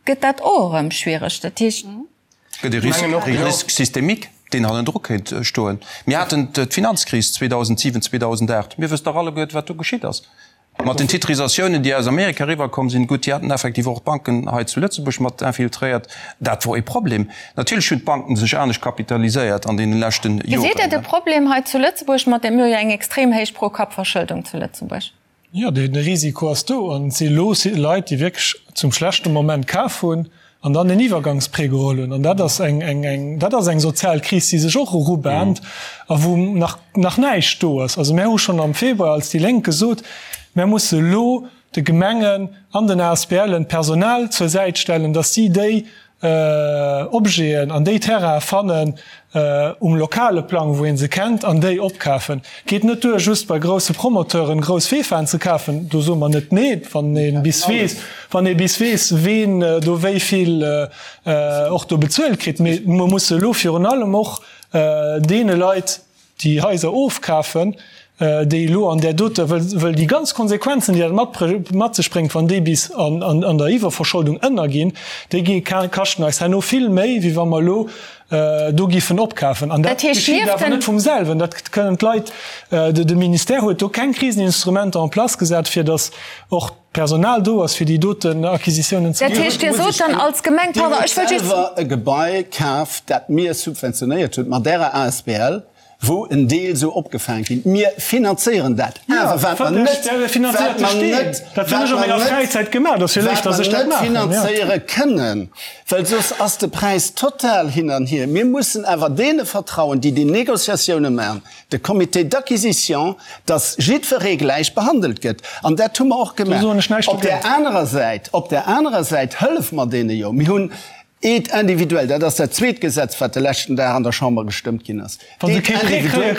gëtt dat och erëm schwiereg. Dat heescht. Gëtt e Risque systémique, deen hannendru kéint stoen. Mir haten d'Finanzkris 2007, 2008. Mir wëssen dach alleguert, wat do geschitt ass mat den Titrisatiounen, déi aus Amerika eriwwerkomm sinn. Gutt, déi haten effektiv och d'Banken hei zu Lëtzebuerg mat infiltréiert. Dat wor e Problem. Natierlech hunn d'Banken sech anescht kapitaliséiert an deene leschten Joren. Gesitt Dir de Problem hei zu Lëtzebuerg mat dem, mir hu jo eng extrem héich Pro-Kapp-Verschëldung zu Lëtzebuerg? Jo, de Risiko ass do an et si elo Leit, déi wierklech zum schlechte Moment kaf hunn an dann en Iwwergangsprêt geholl hunn. An dat ass eng, eng, eng, dat ass eng sozial Kris, déi sech och erubahnt a wou nach, nach näischt do ass. Also mär hu schonn am Februar als déi Lénk gesot, mär musse elo de Gemengen an den ASBLen d'Personal zur Säit stellen, datt si déi Objeten an déi Terrainen fannen um lokale Plang, wou ee se kennt, an déi opkafen. Et geet net duer, just bei grousse Promoteuren grouss Vefaen ze kafen. Do soe mer net nee, wann ee bis weess, wann ee bis weess, ween do wéi vill och do bezuelt kritt. Mee mer musse elo virun allem och deene Leit, déi Haiser ofkafen, déi elo an där doter, wëll déi ganz Konsequenzen, déi dat mat sech bréngt, wann déi bis an der Iwwerverscholdung ënnerginn, déi gi kaschten eis herno vill méi, wéi wa mer elo do giffen opkafen. An dat geschitt awer net vum selwen. Dat kënnen d'Leit, de Ministère huet do keng Kriseninstrumenter en place gesat, fir datt och d'Personal do ass, fir déi doten Acquisitiounen ze maachen. Dat heescht, Dir sot dann als Gemeng, pardon, ech wëll just. Dir hutt selwer e Gebai kaf, dat mir subventionéiert hunn, mat Ärer asbl, wou en Deel sou opgefaang ginn. Mir finanzéieren dat. Awer wat mer net, wat mer net, wat mer net finanzéiere kënnen, well soss ass de Präis total hin an hier. Mir mussen awer deene vertrauen, déi déi Négociatioune maachen, de Comité d'acquisition, dass jiddweree gläich behandelt gëtt. An dat hu mer och gemaach. Op där anerer Säit, op där anerer Säit hëllef mer deene jo. Mir hunn Aide individuelle, dat ass dat zweet Gesetz, wat de leschten Dag an der Chamber gestëmmt ginn ass. Aide individuelle,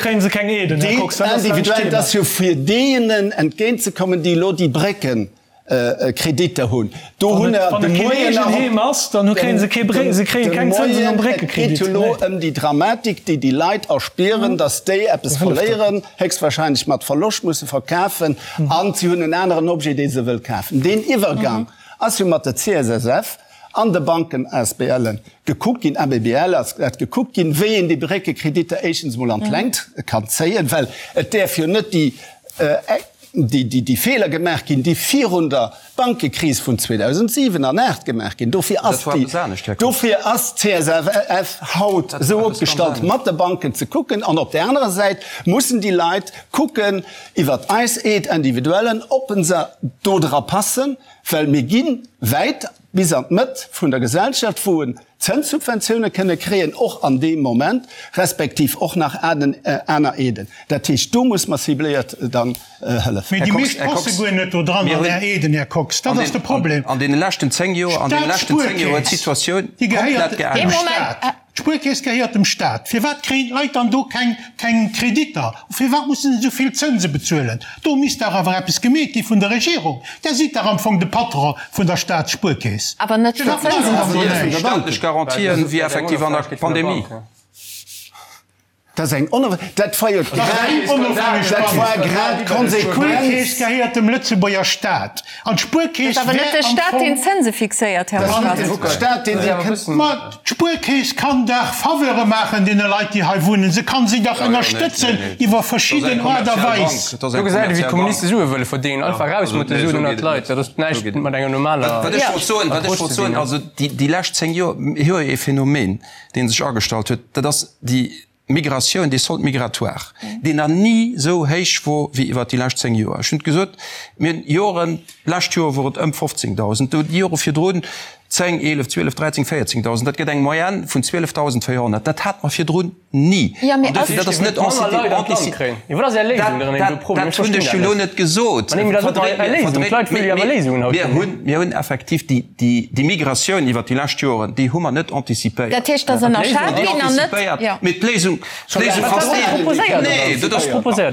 dat ass jo fir deenen entgéintzekommen, déi elo déi Brécken Kreditter hunn. Do hunn der de Moien nach de Moien, et geet jo elo ëm déi Dramatik, déi déi Leit erspieren, datt déi eppes verléieren, héchstwahrscheinlech mat Verloscht musse verkafen an si hunn en aneren Objet, dee se wëll kafen. Deen Iwwergang ass jo mat der CSSF an de Banken, ASBLen, gekuckt ginn, ABBL ass dat gekuckt ginn, wéi een déi Bréckekreditter éischtens emol an d'Längt kann zéien, well et däerf jo net déi déi Feeler gemaach ginn, déi virun der Bankekris vun 2007 an 2008 gemaach ginn. Dofir ass déi, dofir ass d'CSFF haut esou opgestallt, mat de Banken ze kucken. An op där anerer Säit mussen déi Leit kucken iwwert eis Aide individuellen, ob se do dra passen, well mir gi wäit bis an d'Mëtt vun der Gesellschaft, wou en Zënssubventioune kënne kréien, och an deem Moment, respektiv och nach aner Aiden. Dat heescht, do muss mer cibléiert dann hëllefen. Mee déi meescht passe guer net do dran an Är Aiden, Här Kox. Dat ass de Problem. An deene leschten 10 Joer, an deene leschten 10 Joer huet d'Situatioun komplett geännert. D'Spuerkeess gehéiert dem Staat. Firwat kréien d'Leit dann do keng keng Kreditter? Firwat mussen se esou vill Zënse bezuelen? Do misst dach awer eppes gemeet gi vun der Regierung. Der sidd dach am Fong de Patron vun der Staatsspuerkeess. Awer net fir Zënsen ze bezuelen. Staatlech Garantien wéi effektiv an der Pandemie. Dat ass eng onofhängeg, dat war jo grad, dat war grad d'Konsequenz. D'Spuerkeess gehéiert dem Lëtzebuerger Staat an d'Spuerkeess Et ass awer net wär de am Staat, Fong. deen d'Zënse fixéiert, Här Dat ass net Moscati. de Staat, deen déi kënnt. Ma d'Spuerkeess kann dach Faveure maachen deene Leit, déi hei wunnen. Se kann si dach ënnerstëtzen iwwer verschidden Aart a Weis. Do gesäit ee wéi d'Kommuniste Sue wëlle verdéngen, einfach raus mat de Suen ënnert d'Leit. Dat ass näischt mat enger normaler Wat ech wollt soen, wat ech wollt soen, also déi lescht 10 Joer, mir hu jo ee Phänomen, dee sech agestallt huet, dat ass déi Migratioun, dee Solde migratoire, deen nach ni esou héich wor wéi iwwert déi lescht 10 Joer. Ech hunn et gesot, mir hunn Joren, d'lescht Joer wor et ëm 15.000, do déi Jore virdrun 10, 11, 12, 13, 14.000. Dat gëtt eng Moyenne vun 12.400. Dat hate mer virdrun ni. An dofir, dat ass net Dat hunn ech jo elo net gesot. Mir hunn, mir hunn effektiv déi, déi Migratioun iwwert déi lescht Joren, déi hu mer net antizipéiert. Dat heescht, datt ënnerschat ginn an net, jo. Mee d'Léisung, d'Léisung ass déi, nee, dat ass,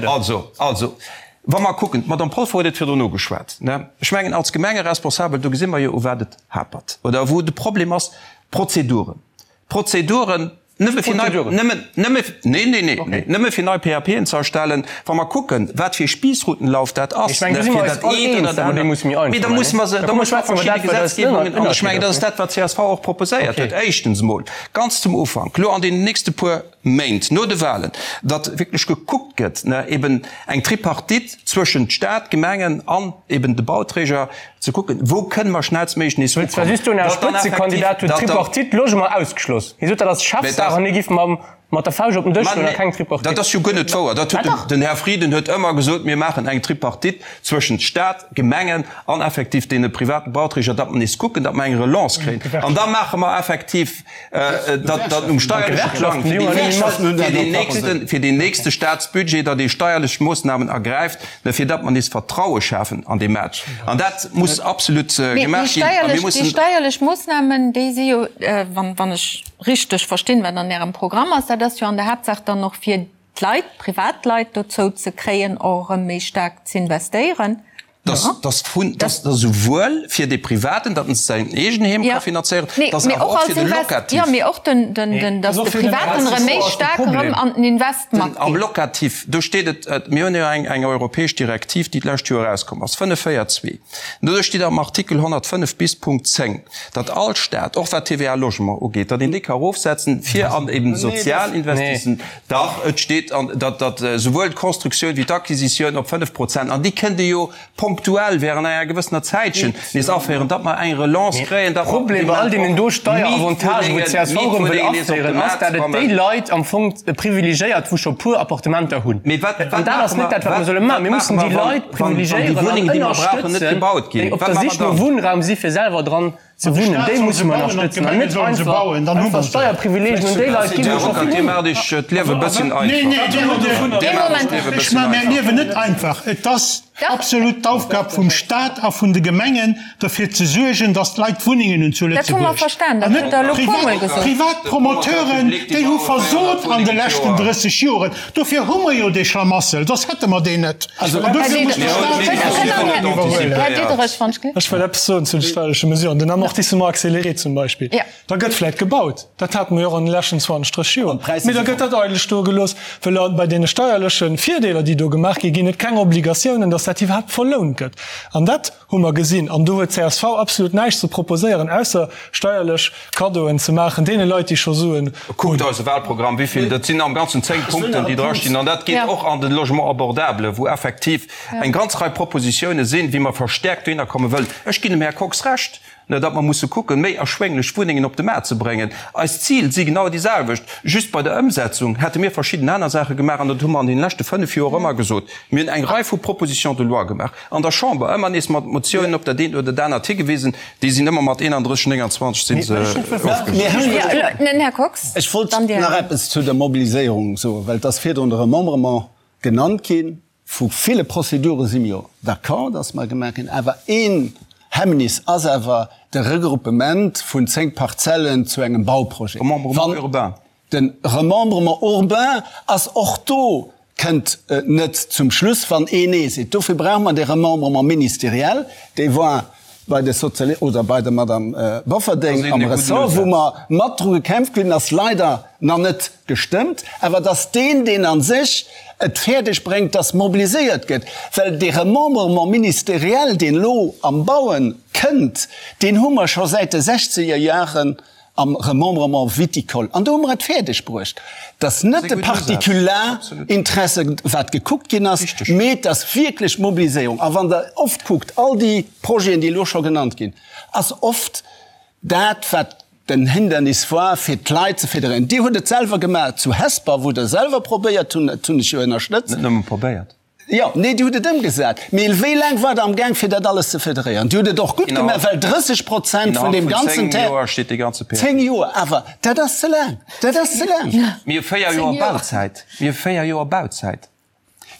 also, also, wa mer kucken, d'Madame Polfer huet et virdrun ugeschwat, ne, ech mengen, als Gemengeresponsabel, do gesi mer jo, u wat et hapert oder wou de Problem ass, d'Prozeduren. D'Prozeduren, nëmme fir nei, nëmmen, nëmme, nee, nee, nee, nee, nëmme fir nei PAPen ze erstellen, wa mer kucken, wat fir e Spiessroutenlauf dat ass, Ech mengen, do si mer eis all eens, datt mer déi musse méi einfach Mee da musse mer se, da musse mer verschidde Gesetzgebungen, an ech mengen, dat ass dat, wat csv och proposéiert huet, éischtens emol ganz zum Ufank, elo an deenen nächste puer Méint no de Wahlen, datt wierklech gekuckt gëtt, eben eng Tripartite zwëschent Stat, Gemengen an eben de Bauträger, ze kucken, wou kënne mer schnellstméiglech nees Wëllt zwar ukommen. just soen, Är Spëtzekandidat huet d'Tripartite Logement ausgeschloss. Hie sot, dat ass Chefsaach an hie giff mam mat der Fauscht op den Dësch schloen a keng Tripartite. Dat ass jo guer net wouer. Dat huet den Här Frieden huet ëmmer gesot, mir maachen eng Tripartite zwëschent Stat, Gemengen an effektiv deene private Bauträger, datt mer nees kucken, datt mer eng Relance kréien. An da maache mer effektiv datt um steierleche Plang fir deen nächste Staatsbudget, datt ee steierlech Moossnamen ergräift, fir datt mer nees Vertraue schafen an dee Maart. An dat muss absolut gemaach ginn. A mir mussen. Déi steierlech Moossnamen, déi si jo, wann ech richteg verstinn, wat an Ärem Programm ass, dat ass jo an der Haaptsaach dann och fir d'Leit, d'Privatleit dozou ze kréien, och erëm méi staark z'investéieren. Dass vun, dass esouwuel fir dee Privaten, datt en säin Eegenheem ka finanzéieren, dass awer och fir de Locatif. Jo, mee och den, den, dass de Privaten erëm méi staark erëm an den Invest matgeet. Am Locatif, do steet et, mir hunn jo eng, eng europäesch Direktiv, déi d'lescht Joer erauskomm ass, 5, 4, 2, do steet am Artikel 105 bis Punkt 10, datt all Stat, och wat d'TVA Logement ugeet, datt een déi ka erofsetzen, fir an eben sozial Investissen, Dach, et steet an, datt, datt esouwuel d'Constructioun wéi d'Acquisitioun op 5 Prozent, an déi kënnt ee jo ponktuell während enger gewëssener Zäitchen nees aféieren, datt mer eng Relance kréien, datt mer Problem bei all deenen do Steieravantagë wou csv erëm wëll aféieren, ass, datt et déi Leit am Fong privilegéiert, wou scho puer Appartementer hunn. An dat ass net dat, wat mer solle maachen. Mir mussen déi Leit privilegéieren an ënnerstëtzen, déi op der Sich no Wunnraum si fir selwer dran Ze wunnen, déi musse mer ënnerstëtzen an net einfach einfach Steierprivileegien un déi Leit ginn, déi scho vill hunn. Dir maacht iech d'Liewe e bësschen einfach. Dir maacht iech d'Liewe e bësschen einfach. Ech maache mäi Liewen net einfach. Et ass absolut d'Aufgab vum Stat a vun de Gemengen, derfir ze suergen, datt d'Leit Wunnengen hunn zu Lëtzebuerg. An net privat Promoteuren, déi hu versot an de leschten 30 Joren. Dofir hu mer jo dee Schlamassel, soss hätte mer deen net. An dofir muss de Staat seng Responsabilitéit iwwerhuelen. Här Diderich, wann ech. Ech wëll eppes soen zu de steierleche Mesuren. Den Amortissement accéléré zum Beispill, da gëtt vläicht gebaut, dat hate mer jo och an de leschten 20, 30 Joer, mee da gëtt dat eidel stoe gelooss, well bei deene steierleche Virdeeler, déi do gemaach ginn, ginn et keng Obligatiounen, dass dat iwwerhaapt verlount gëtt. An dat hu mer gesinn. An do huet csv absolut näischt ze proposéieren, ausser steierlech Kaddoen ze maachen deene Leit, déi scho Suen hunn. Kuckt eise Wahlprogramm, wéivill, dat sinn am Ganzen 10 Punkten, déi drastinn. An dat geet och an de Logement abordable, wou effektiv eng ganz Rei Propositione sinn, wéi mer verstärkt dohinner komme wëllen. Ech ginn dem Här Kox Recht, datt mer musse kucken, méi erschwénglech Wunnengen op de Maart ze bréngen. Eis Zil si genau déi selwecht, just bei der Ëmsetzung hätte mir verschidden aner Saache gemaach. An dat hu mer an deene leschte fënnf Joer ëmmer gesot. Mir hunn eng Rei vu Propositions de loi gemaach an der Chamber, ëmmer nees mat Motiounen op dat eent oder dat anert higewisen. Déi sinn ëmmer mat 31, 29 si se ofgelehnt. Här Kox, Ech wollt nach eppes zu der Mobiliséierung soen, well et ass virdrun de Remembrement genannt ginn. Vu ville Prozedure si mir jo d'accord, dass mer gemaach ginn. Awer een Hemmnis ass awer de Regruppement vun 10 Parzellen zu engem Bauprojet. Remembrement urbain. De Remembrement urbain ass och do, kënnt net zum Schluss, wann een Nee seet. Dofir brauche mer dee Remembrement ministériel, dee war. bei de Sozialisten oder bei der Madame Bofferding am Ressort, wou mer mat dru gekämpft hunn, ass leider nach net gestëmmt, awer dass deen, deen a sech et fäerdeg bréngt, dass mobiliséiert gëtt, well dee Remembrement ministériel, deen elo am Bauen kënnt, deen hu mer scho säit de sechzeger Jaren am Remembrement viticole. An do hu mer et fäerdeg bruecht, dass net de Partikularinteresse wat gekuckt ginn ass, mee dass wierklech d'Mobiliséierung, a wann Der oft kuckt, all déi Projeten, déi elo scho genannt ginn, ass oft dat, wat den Hindernis war, fir d'Leit ze fédéréieren. Dir hutt et selwer gemaach zu Hesper, wou Der selwer probéiert hunn, dat hunn ech jo ënnerstëtzt. Net nëmme probéiert. Jo, nee, Dir hutt et ëmgesat. Mee wéi laang waart Der amgaang, fir dat alles ze federéieren? Dir hutt et och gutt gemaach, well 30 Prozent vun deem ganzen Terrain. Innerhalb vun zéng Joer steet dee ganze PAP. Zéng Joer, awer dat ass ze laang. Dat ass ze laang. Mir hu véier Joer Bauzäit. Mir hu véier Joer Bauzäit.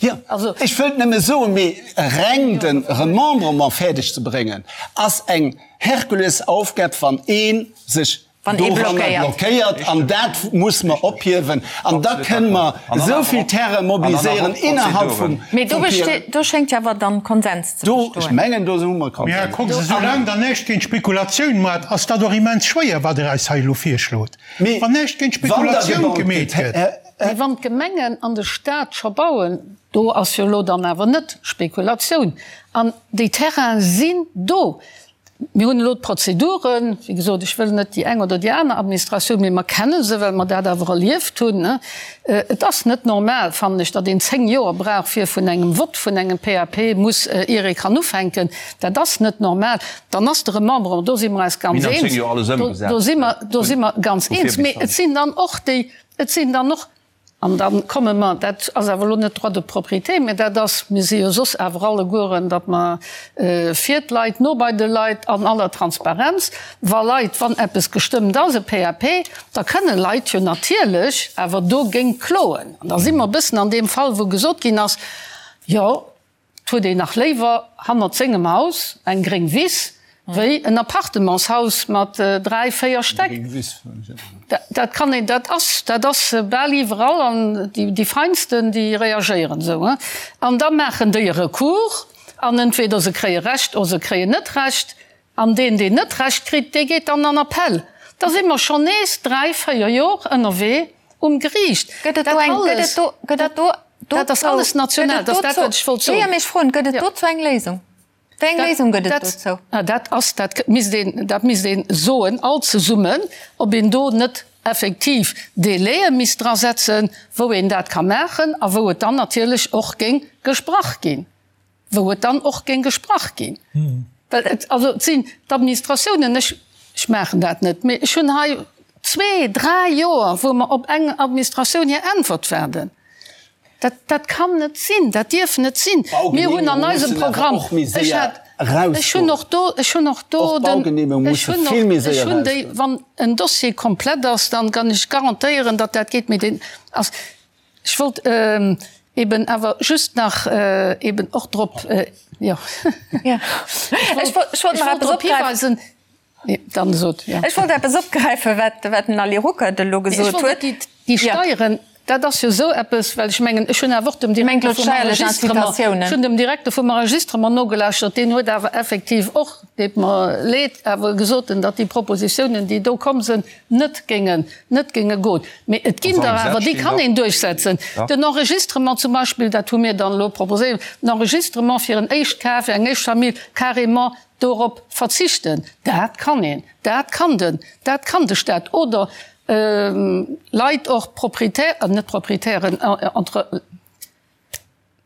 Jo, ech wëllt nëmme soen, mee reng de Remembrement fäerdeg ze bréngen, ass eng Herkulesaufgab, wann ee sech doranner blockéiert. An dat muss mer ophiewen. An da kënne mer esou vill Terrain mobiliséieren innerhalb vum. Mee do besteet, do schéngt jo awer dann Konsens ze bestoen. Ech mengen, do hu mer Konsens. Mee Här Kox, esou laang Der näischt géint Spekulatioun maacht, ass dat och immens schwéier, wat Der eis hei elo virschlot. Wann näischt géint Spekulatioun gemeet gëtt. Mee wann d'Gemengen an de Stat scho bauen, do ass jo elo dann awer net Spekulatioun. An déi Terraine sinn do. Mir hunn elo d'Prozeduren, wéi gesot, ech wëll net déi eng oder déi aner Administratioun, mee mer kenne se, well mer dat awer erlieft hunn. Et ass net normal, fannen ech, datt een 10 Joer brauch, fir vun engem Vott vun engem PAP muss, ier ee kann ufänken. Dat ass net normal. Dann ass de Remembrement, do si mer eis ganz eens, do si mer, do si mer ganz eens. Mee et sinn dann och déi, et sinn dann och An da komme mer, dat ass awer elo net Droit de propriété, mä dat ass, mir si jo soss awer allegueren, datt mer fir d'Leit, no bei de Leit, an aller Transparenz, wa Leit, wann eppes gestëmmt ass, e PAP, da kënne Leit jo natierlech awer dogéint kloen. An da si mer e bëssen an deem Fall, wou gesot ginn ass, jo, 't huet een nach léiwer hannert sengem Haus eng gréng Wiss wéi en Appartementshaus mat 3, 4 Stäck. Dat kann een, dat ass, dat ass bal iwwerall an déi Feinsten, déi reagéieren esou. An da maachen déi e Recours an entweder se kréie Recht oder se kréien net Recht. An deen, deen net Recht kritt, dee geet dann an Appell. Da si mer schonn nees 3, 4 Jor ënnerwee um Geriicht. Gëtt et do eng, gëtt et do, gëtt et do, Dat ass alles national, dat ass dat, wat ech wollt soen. Jo, mee ech froen, gëtt et dozou eng Léisung? Wéi eng Léisung gëtt et dozou? Dat ass, dat misst een, dat misst ee soen, all zesummen, ob een do net effektiv Délaië misst drasetzen, wou een dat ka maachen a wou et dann natierlech och géing gesprach ginn. wou et dann och géing gesprach ginn. Well et, also et sinn d'Administratiounen, ech, ech maachen dat net, mee ech hunn hei zwee, dräi Joer, wou mer op eng Administratioun hir Äntwert waarden. Dat, dat kann net sinn, dat dierf net sinn. Mir hunn an eisem Programm, ech hat, ech hunn och do, ech hunn och do den, ech hunn och, ech hunn déi, wann en Dossier komplett ass, dann kann ech garantéieren, datt dat geet, mee deen ass, Ech wollt eben awer just nach eben och drop, jo, ech wollt drop hiweisen, dann sot, jo. Ech wollt eppes opgräifen, wat den Ali Ruckert elo gesot huet. Déi Steieren, dat ass jo esou eppes, well ech mengen, ech hunn awer och dem Direkter vum Enregistrement, ech hunn dem Direkter vum Enregistrement nogelauschtert, deen huet awer effektiv och, deet mer leed, awer gesot, datt déi Propositionen, déi do komm sinn, net géingen, net géinge goen. Mee et ginn der awer, déi kann een duerchsetzen. Den Enregistrement zum Beispill, dat hu mir dann elo proposéiert, den Enregistrement fir en Éischtkaf, fir eng Éischtfamill, carrément dorop verzichten, dat kann een, dat kann den, dat kann de Stat. Oder Leit och, Propriétaires, net Propriétairen, entre.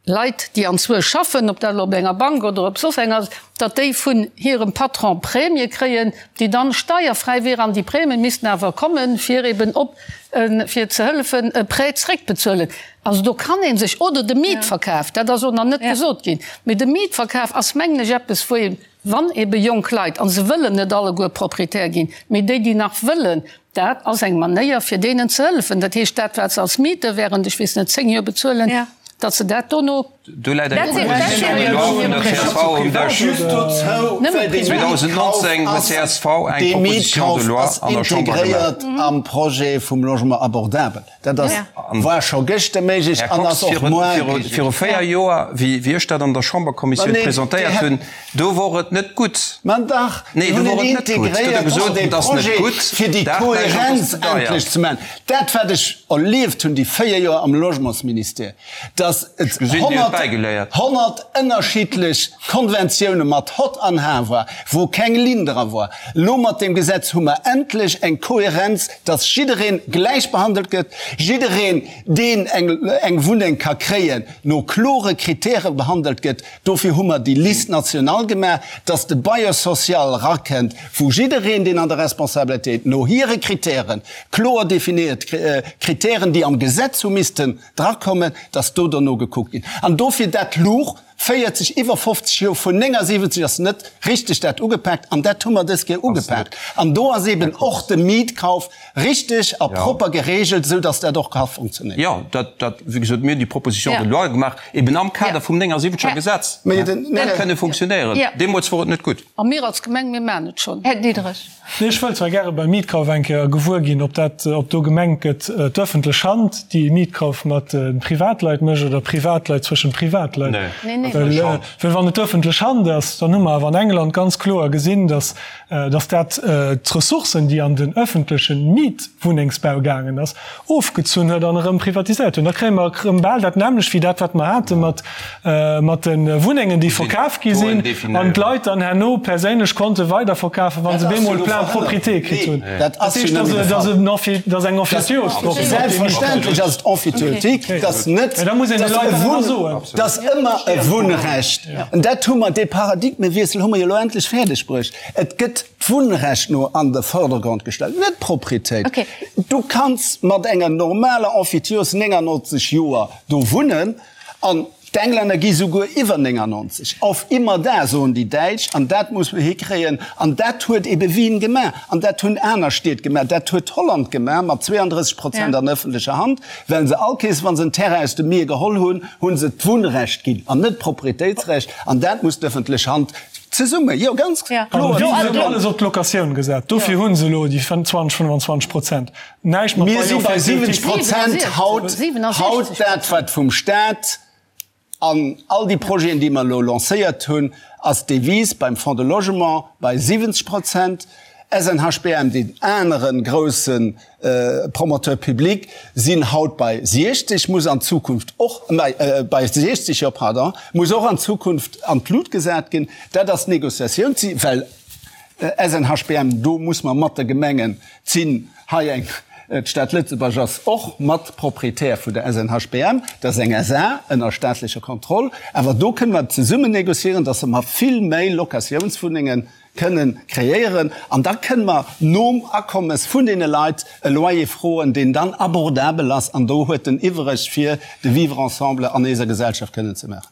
Leit, déi anzwuesch schaffen, ob dat elo op enger Bank oder op soss eng ass, datt déi vun hirem Patron Prämie kréien, déi dann steierfräi wieren. An déi Prämie missten awer kommen, fir eben op, fir ze hëllefen, e Prêt zréckbezuelen. Also do kann ee sech, oder de Mietverkaf, dat ass och nach net gesot ginn, mee de Mietverkaf ass, mengen ech, eppes, wou ee, wann ebe jonk Leit, a se wëllen net alleguer Proprietär ginn, mee déi, déi nach wëllen, Dat ass eng Manéier, fir deenen ze hëllefen. Dat heescht, dat, wat se als Miete während, ech weess net, zéng Joer bezuelen, datt se dat dono. Do läit eng Proposition de loi vun der csv um Dësch. 2019 huet csv eng Proposition de loi an der Chamber gemaach. Am Projet vum Logement abordable. Dat ass, war scho gëschter méiglech an ass och muar méiglech. Viru 4 Joer, wéi ech dat an der Chamberkommissioun presentéiert hunn, do wor et net gutt. Ma dach, mir hunn et integréiert an dee Projet, fir déi Kohärenz endlech ze maachen. Dat, wat ech erlieft hunn déi 4 Joer am Logementsministère, dass et 100 ënnerschiddlech Konventioune mat Hott an Har war, wou keng Linn dra war. Elo mat deem Gesetz hu mer endlech eng Kohärenz, dass jidderee gläich behandelt gëtt, jiddereen, deen eng Wunneng ka kréien, no klore Kritäre behandelt gëtt. Dofir hu mer déi Liste nationale gemaach, dass de Bailleur social rakënnt, wou jiddereen, deen an der Responsabilitéit no hire Kritären, kloer definéiert Kritären, déi am Gesetz hu missten drakommen, dass do derno gekuckt ginn. An dofir dat luch 40, iwwer 50 Joer, vun 79 ass net richteg dat ugepaakt an dat hu mer dës Kéier ugepaakt. An do ass eben och de Mietkauf richteg a propper geregelt, esou dass dat och ka funktionéieren. Jo, dat, dat, wéi gesot, mir hunn déi Proposition de loi gemaach, eben am Kader vum 79er Gesetz. Dat kënne funktionéieren. Deemools wor et net gutt. A mir als Gemeng, mir maachen et schonn. Här Diderich. Nee, ech wëll zwar gäre beim Mietkauf eng Kéier gewuer ginn, ob dat, ob do gemengt gëtt, d'öffentlech Hand, déi e Mietkauf mat Privatleit mécht oder Privatleit zwëschen Privatleit. Well, well wann et d'öffentlech Hand ass, dann hu mer awer an England ganz kloer gesinn, dass, dass dat d'Ressourcen, déi an den öffentleche Mietwunnengsbau gaangen ass, ofgezunn huet an erëm privatiséiert hunn. Da kréie mer erëm bal dat nämmlecht wéi dat, wat mer hate mat, mat de Wunnengen, déi verkaf gi sinn an d'Leit dann herno perséinlech konnte weiderverkafen, wa se bemol plein propriété kritt hunn. Dat heescht, dass ass eng Emphytéose drop. Selbstverständlech ass et emphytéotique, dass net, Mä da muss een de Leit dat awer soen. Dass ëmmer e Wunnrecht, an dat hu mer, dee Paradigmewiessel hu mer jo elo endlech fäerdeg bruecht. Et gëtt d'Wunnrecht no an de Vordergrond gestallt, net d'Proprietéit. Du kanns mat enger normaler Emphytiose 99 Joer do wunnen an d'Englänner gi souguer iwwer 99. Auf immer da, soen déi Däitsch, an dat muss mer hikréien. An dat huet ebe Wien gemaach an dat hunn aner Stied gemaach, dat huet Holland gemaach mat 32 Prozent an ëffentlecher Hand, well se all Kees, wa se en Terrain aus dem Mier geholl hunn, hu se d'Wunnrecht ginn an net d'Proprietéitsrecht. An dat muss d'ëffentlech Hand Zesumme, jo, ganz kloer. An déi hunn alles op d'Locatioun gesat. Dofir hu se elo déi 20, 25 Prozent. Näischt mat Mir si bei 70 Prozent haut, haut dat, wat vum Staat an all déi Projeten, déi mer elo lancéiert hunn, ass d'Devise beim Fonds de Logement bei 70 Prozent, SNHBM, deen anere grousse Promoteur public, sinn haut bei 60, muss an Zukunft och, bei 60, jo, pardon, muss och an Zukunft an d'Lut gesat ginn. Dat ass d'Négociatioun, well SNHBM, do muss mer mat de Gemengen sinn hei eng, d'Stad Lëtzebuerg ass och mat Proprietär vun der SNHBM, dat ass eng SA ënner staatlecher Kontroll, awer do kënne mer zesummen négociéieren, dass mer vill méi Locatiounswunnengen kënnen kreéieren an da kënne mer nom Akommes vun deene Leit e Loyer froen, deen dann abordabel ass an do huet en iwwereg fir de Vivre ensemble an éiser Gesellschaft kënnen ze maachen.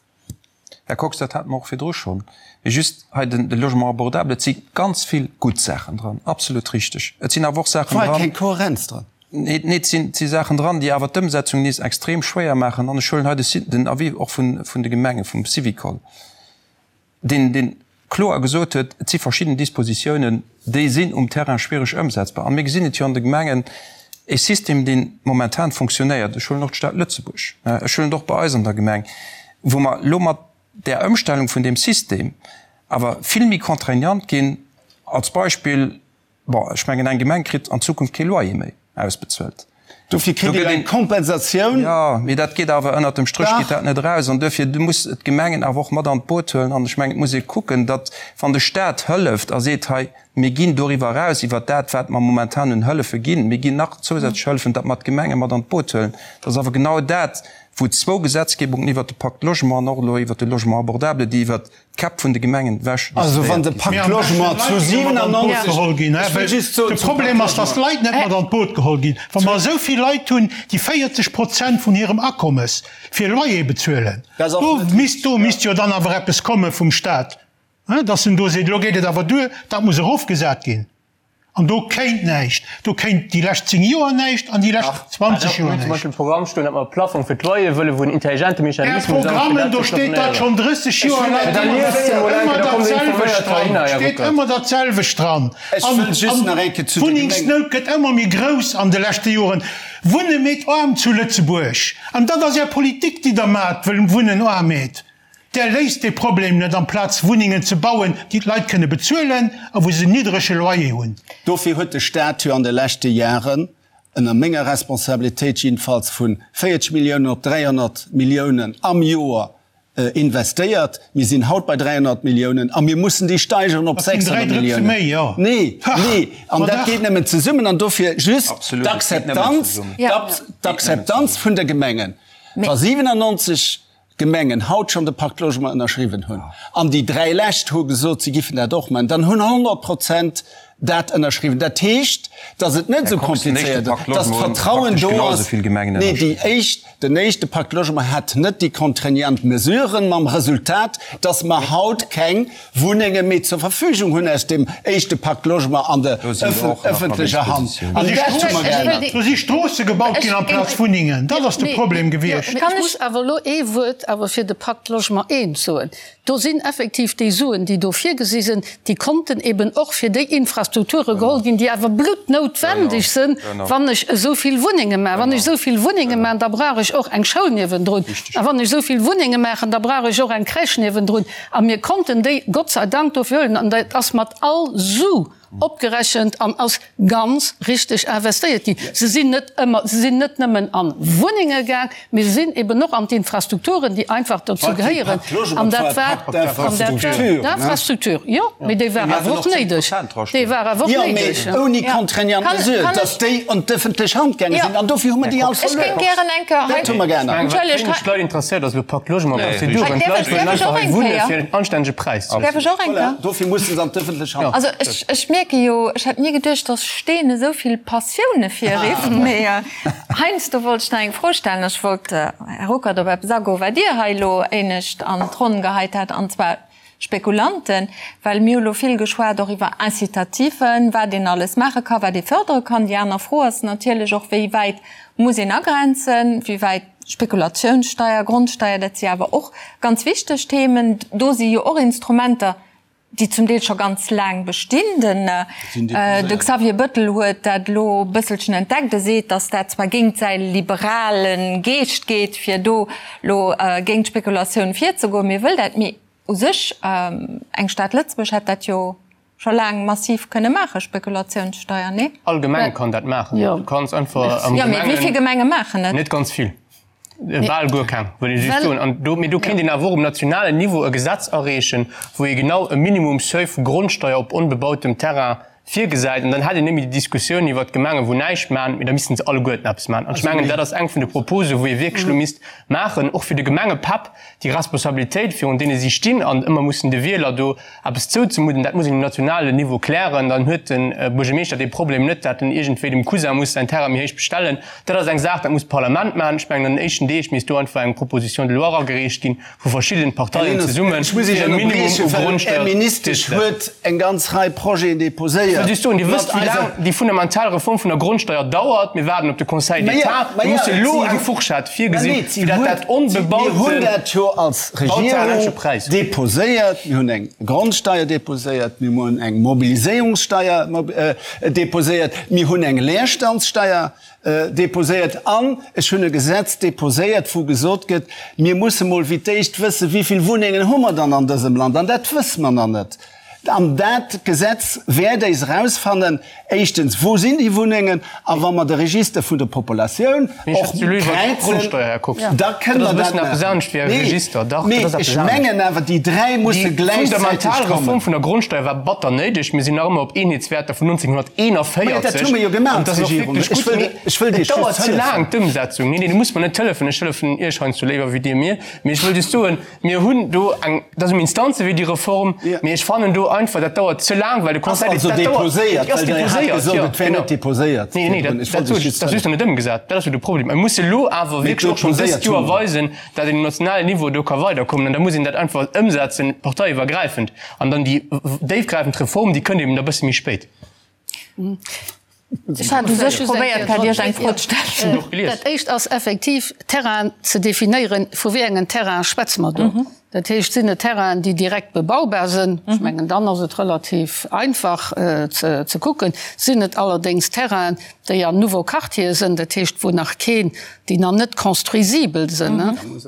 Här Kox, dat hate mer och virdru schonn. Mee just hei den de Logement abordable, et si ganz vill gutt Saachen dran, absolut richteg. Et sinn awer och Saachen dran. War keng Kohärenz dran. Nee, nee, et sinn, et si Saachen dran, déi awer d'Ëmsetzung nees extrem schwéier maachen. An ech huelen hei de den Avis och vun, vun de Gemengen, vum Syvicol. deen deen kloer gesot huet, et si verschidden Dispositiounen, déi sinn um Terrain schwiereg ëmsetzbar. A mir gesinn et jo an de Gemengen, e System, dee momentan fonctionnéiert, ech huelen och d'Stad Lëtzebuerg, ech huelen et och bei eis an der Gemeng, wou mer elo mat där Ëmstellung vun deem System awer vill méi contraignant ginn, als Beispill, Bon, ech mengen, eng Gemeng kritt an Zukunft kee Loyer méi ausbezuelt. Dofir kritt Dir eng Kompensatioun. Jo, mee dat geet awer, ënnert dem Stréch geet dat net eraus. An duerfir, du muss d'Gemengen awer och mat an d'Boot huelen. An ech mengen, et muss ee kucken, datt, wann de Stat hëlleft a seet, hei, mir ginn doriwwer eraus, iwwert dat, wat mer momentan un Hëllefe ginn, mir ginn nach zousätzlech Hëllefen, datt mer d'Gemenge mat an d'Boot huelen. Dat ass awer genau dat, wou zwou Gesetzgebungen iwwert de Pacte Logement an och elo iwwert de Logement abordable, déi iwwert D'Käpp vun de Gemengen ewech Also wann de Pacte Logement zu 97 geholl ginn, de Problem ass, datt d'Leit net mat an d'Boot geholl ginn. Wa mer esou vill Leit hunn, déi 40 Prozent vun hirem Akommes fir Loyer bezuelen, do misst, do misst jo dann awer eppes komme vum Stat, datt en do seet, elo geet et awer duer, dat muss erofgesat ginn. An do kéint näischt. Do kéint déi lescht 10 Joer näischt an déi lescht 20 Joer näischt. Zum Beispill Programm stoen, datt mer e Plaffong fir d'Loyere wëllen, wou en intelligente Mechanismus ass, fir dat ze Do steet dat schonn 30 Joer laang. Ëmmer dat selwecht dran. Steet ëmmer dat selwecht dran. An d'Wunnengsnout gëtt ëmmer méi grouss an de leschte Joren. Wunne meet aarm zu Lëtzebuerg. An dat ass Är Politik, déi Der maacht, wëll Wunnen aarm meet. Där léist dee Problem net, amplaz Wunnengen ze bauen, déi d'Leit kënne bezuelen a wou se en niddrege Loyer hunn. Dofir huet de Stat jo an de leschte Jaren, ënner menger Responsabilitéit jiddefalls, vu 40 Milliounen op 300 Milliounen am Joer investéiert. Mir sinn haut bei 300 Milliounen a mir mussen déi steigeren op 600 Milliounen. Nee, nee, an dat geet nëmmen zesummen. An dofir just d'Akzeptanz, d'Akzeptanz vun de Gemengen, wa 97 Gemengen haut schonn de Pacte Logement ënnerschriwwen hunn, an déi 3 lescht hu gesot, si giffen dat och maachen, dann hunn 100 Prozent dat ënnerschriwwen. Dat heescht, datt et net esou komplizéiert ass, datt d'Vertrauen do ass. Nee, déi éischt, den éischte Pacte Logement hat net déi contraignant Mesuren, mam Resultat, datt mer haut keng Wunnenge méi zur Verfügung hunn aus dem éischte Pacte Logement an der ëffentlecher Hand. An dat hu mer geännert. Do si Stroosse gebaut ginn amplaz Wunnengen. Dat ass de Problem gewiescht. Ech muss awer elo ee Wuert awer fir de Pacte Logement I soen. Do sinn effektiv déi Suen, déi do virgesi sinn, déi konnten eben och fir déi Infrastrukture geholl ginn, déi awer bluttnoutwendeg sinn, wann ech esou vill Wunnenge maachen. Wann ech esou vill Wunnenge maachen, da brauch ech och eng Schoul niewendrun. A wann ech esou vill Wunnenge maachen, da brauch ech och eng Crèche niewendrun. A mir konnten déi Gott sei Dank dofir huelen. An dat ass mat all Su opgerechent an ass ganz richteg investéiert ginn. Se sinn net ëmmer, se sinn net nëmmen a Wunnenge gaang, mee se sinn eben och an d'Infrastrukturen, déi einfach dozou gehéieren. An dat war, an dat war d'Infrastruktur, jo, mee déi war awer och néideg. Déi war awer och néideg. Jo, mee ouni contraignant Mesure, dass déi an d'ëffentlech Hand gaange sinn. An dofir hu mer déi all verluer. Ech géing gären eng Kéier hei. Dat hu mer geännert. Entschëllegt, hei. D'Leit interesséiert ass elo Pacte Logement Prozeduren. D'Leit wëllen einfach hei wunne fir en anstännege Präis. Däerf ech och eng Kéier? Dofir musse se an d'ëffentlech Hand. Also ech, ech mierke jo, ech hätt ni geduecht, dass Steen esou vill Passioune virrifft, mee heiansdo wollt ech nach eng Fro stellen. Ech wollt, Här Ruckert, op eppes agoen, wat Dir hei elo éinescht an d'Ronn geheit hat, an zwar Spekulanten, well mir hu lo vill geschwat och iwwer Incitativen, wat een alles maache ka, wat ee fërdere kann. Déi aner Fro ass natierlech och, wéi wäit muss een agrenzen, wéi wäit Spekulatiounssteier, Grondsteier, dat si awer och ganz wichteg Themen. Do si jo och Instrumenter, déi zum Deel scho ganz laang bestinn. Den de Xavier Bëttel huet dat elo e bësselchen entdeckt. E seet, datt dat zwar géint säi liberale Geescht geet, fir do elo géint d'Spekulatioun virzegoen, mee e wëll dat. Mee u sech, eng Stad Lëtzebuerg hätt dat jo scho laang massiv kënne maachen, Spekulatiounssteier, nee? All Gemeng kann dat maachen. Du kanns einfach am Gemengen. Jo, mee wéi vill Gemenge maachen et? Net ganz vill. Bal guer keng, wëll ech just soen. An do, mee do kéint een awer och um nationalen Niveau e Gesetz areechen, wou ee genau e Minimum Seuil vu Grondsteier op onbebautem Terrain virgesäit. An dann hätt een net méi déi Diskussioun iwwert d'Gemengen, wou näischt maachen, mee da missten se alleguerten eppes maachen. An ech mengen, dat ass eng vun de Proposen, wou ee wierklech elo misst maachen, och fir de Gemengepäpp, déi Responsabilitéit, virun deene si stinn an ëmmer mussen de Wieler do eppes zouzemudden, dat muss een um nationalen Niveau klären. Dann huet de Buergermeeschter dee Problem net, dat en iergendwéi dem Cousin muss säin Terrain méi héich bestellen. Dat ass eng Saach, dat muss d'Parlament maachen. Ech mengen, an den éischten Deeg misst do einfach eng Proposition de loi eragereecht ginn, vu verschiddenen Parteien zesummen, fir e Minimum u Grondsteuer Är Ministesch huet eng ganz Rei Projeten déposéiert. Ech wëll just soen, Dir wësst, wéi laang déi fundamental Reform vun der Grondsteuer dauert. Mir waarden op de Conseil d'État. Mir musse elo eng Fourchette virgesinn, fir dat dat onbebaute Mir hunn dat jo als Regierung déposéiert. Mir hunn eng Grondsteuer déposéiert, mir hunn eng Mobiliséierungssteuer déposéiert, mir hunn eng Leerstandssteuer Déposéiert an ech hunn e Gesetz déposéiert, wou gesot gëtt, mir musse mol fir d'éischt wëssen, wéi vill Wunnengen hu mer dann an dësem Land. An dat wësse mer nach net. An dat Gesetz wäert éis erausfannen, éischtens, wou sinn déi Wunnengen, a wa mer de Register vun der Populatioun och kräizen, da kënne mer dat maachen. Nee, mee ech mengen awer, déi 3 musse gläichzäiteg kommen. Déi fundamental Reform vun der Grondsteuer war batter néideg. Mir sinn nach ëmmer op Eenheetswäerter vun 1900. 41. Dat hu mer jo gemaach als Regierung. Ech wëll, ech wëll Dir just hëllefen. Et dauert ze laang, d'Ëmsetzung. Nee, nee, du muss mer net hëllefen. Ech hëllefen Iech heiansdo léiwer wéi Dir mir. Mee ech wëll just soen, mir hunn do eng, dat ass um Instanzewee, déi Reform. Mee ech fannen do einfach, dat dauert ze laang, well de Conseil d'État, dat dauert. Ass also déposéiert, well Dir hat gesot, et wär net déposéiert. Nee, nee, dat, dat sot ech, dat ass just nach net ëmgesat. Dat ass jo de Problem. Mir musse elo awer wierklech och schonn dëst Joer weisen, dat een um nationalen Niveau do ka weiderkommen. An da muss een dat einfach ëmsetzen, parteiiwwergräifend. An dann déi déifgräifend Reform, déi kënnt eben da bësse méi spéit. Ech hat u sech probéiert gehat, Iech eng Fro ze stellen. Dat éischt ass effektiv, Terrainen ze definéieren. Vu wéi engen Terraine schwätze mer do? Dat heescht, sinn et Terrainen, déi direkt bebaubar sinn? Ech mengen, dann ass et relativ einfach ze kucken. Sinn et allerdéngs Terrainen, déi an Nouveaux Quartiere sinn, dat heescht, wou nach keen, déi nach net construisibel sinn,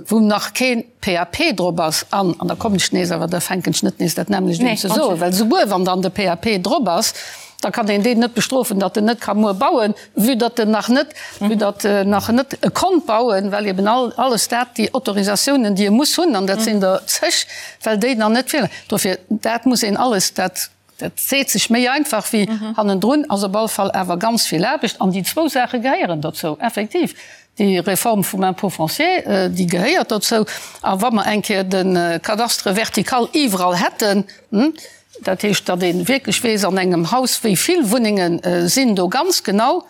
wou nach keen PAP drop ass, an, an da kommen ech nees, awer da fänken ech net nees dat nämmlecht un ze soen, well souguer wann dann de PAP drop ass, da kann een deen net bestrofen, datt en net ka muer bauen, vue datt en nach net, vue datt en nach net konnt bauen, well eben all, alles dat, déi Autorisatiounen, déi e muss hunn, an dat sinn der zeg, well déi nach net virleien. Dofir, dat muss een alles, dat, dat seet sech méi einfach wéi hannendrun, ass op alle Fall awer ganz vill Aarbecht. An déi zwou Saache gehéieren dozou, effektiv. Déi Reform vum Impôt foncier, déi gehéiert dozou. A wa mer eng Kéier de Cadastre vertical iwwerall hätten, Dat heescht, datt ee wierklech weess an engem Haus, wéi vill Wunnenge sinn do ganz genau,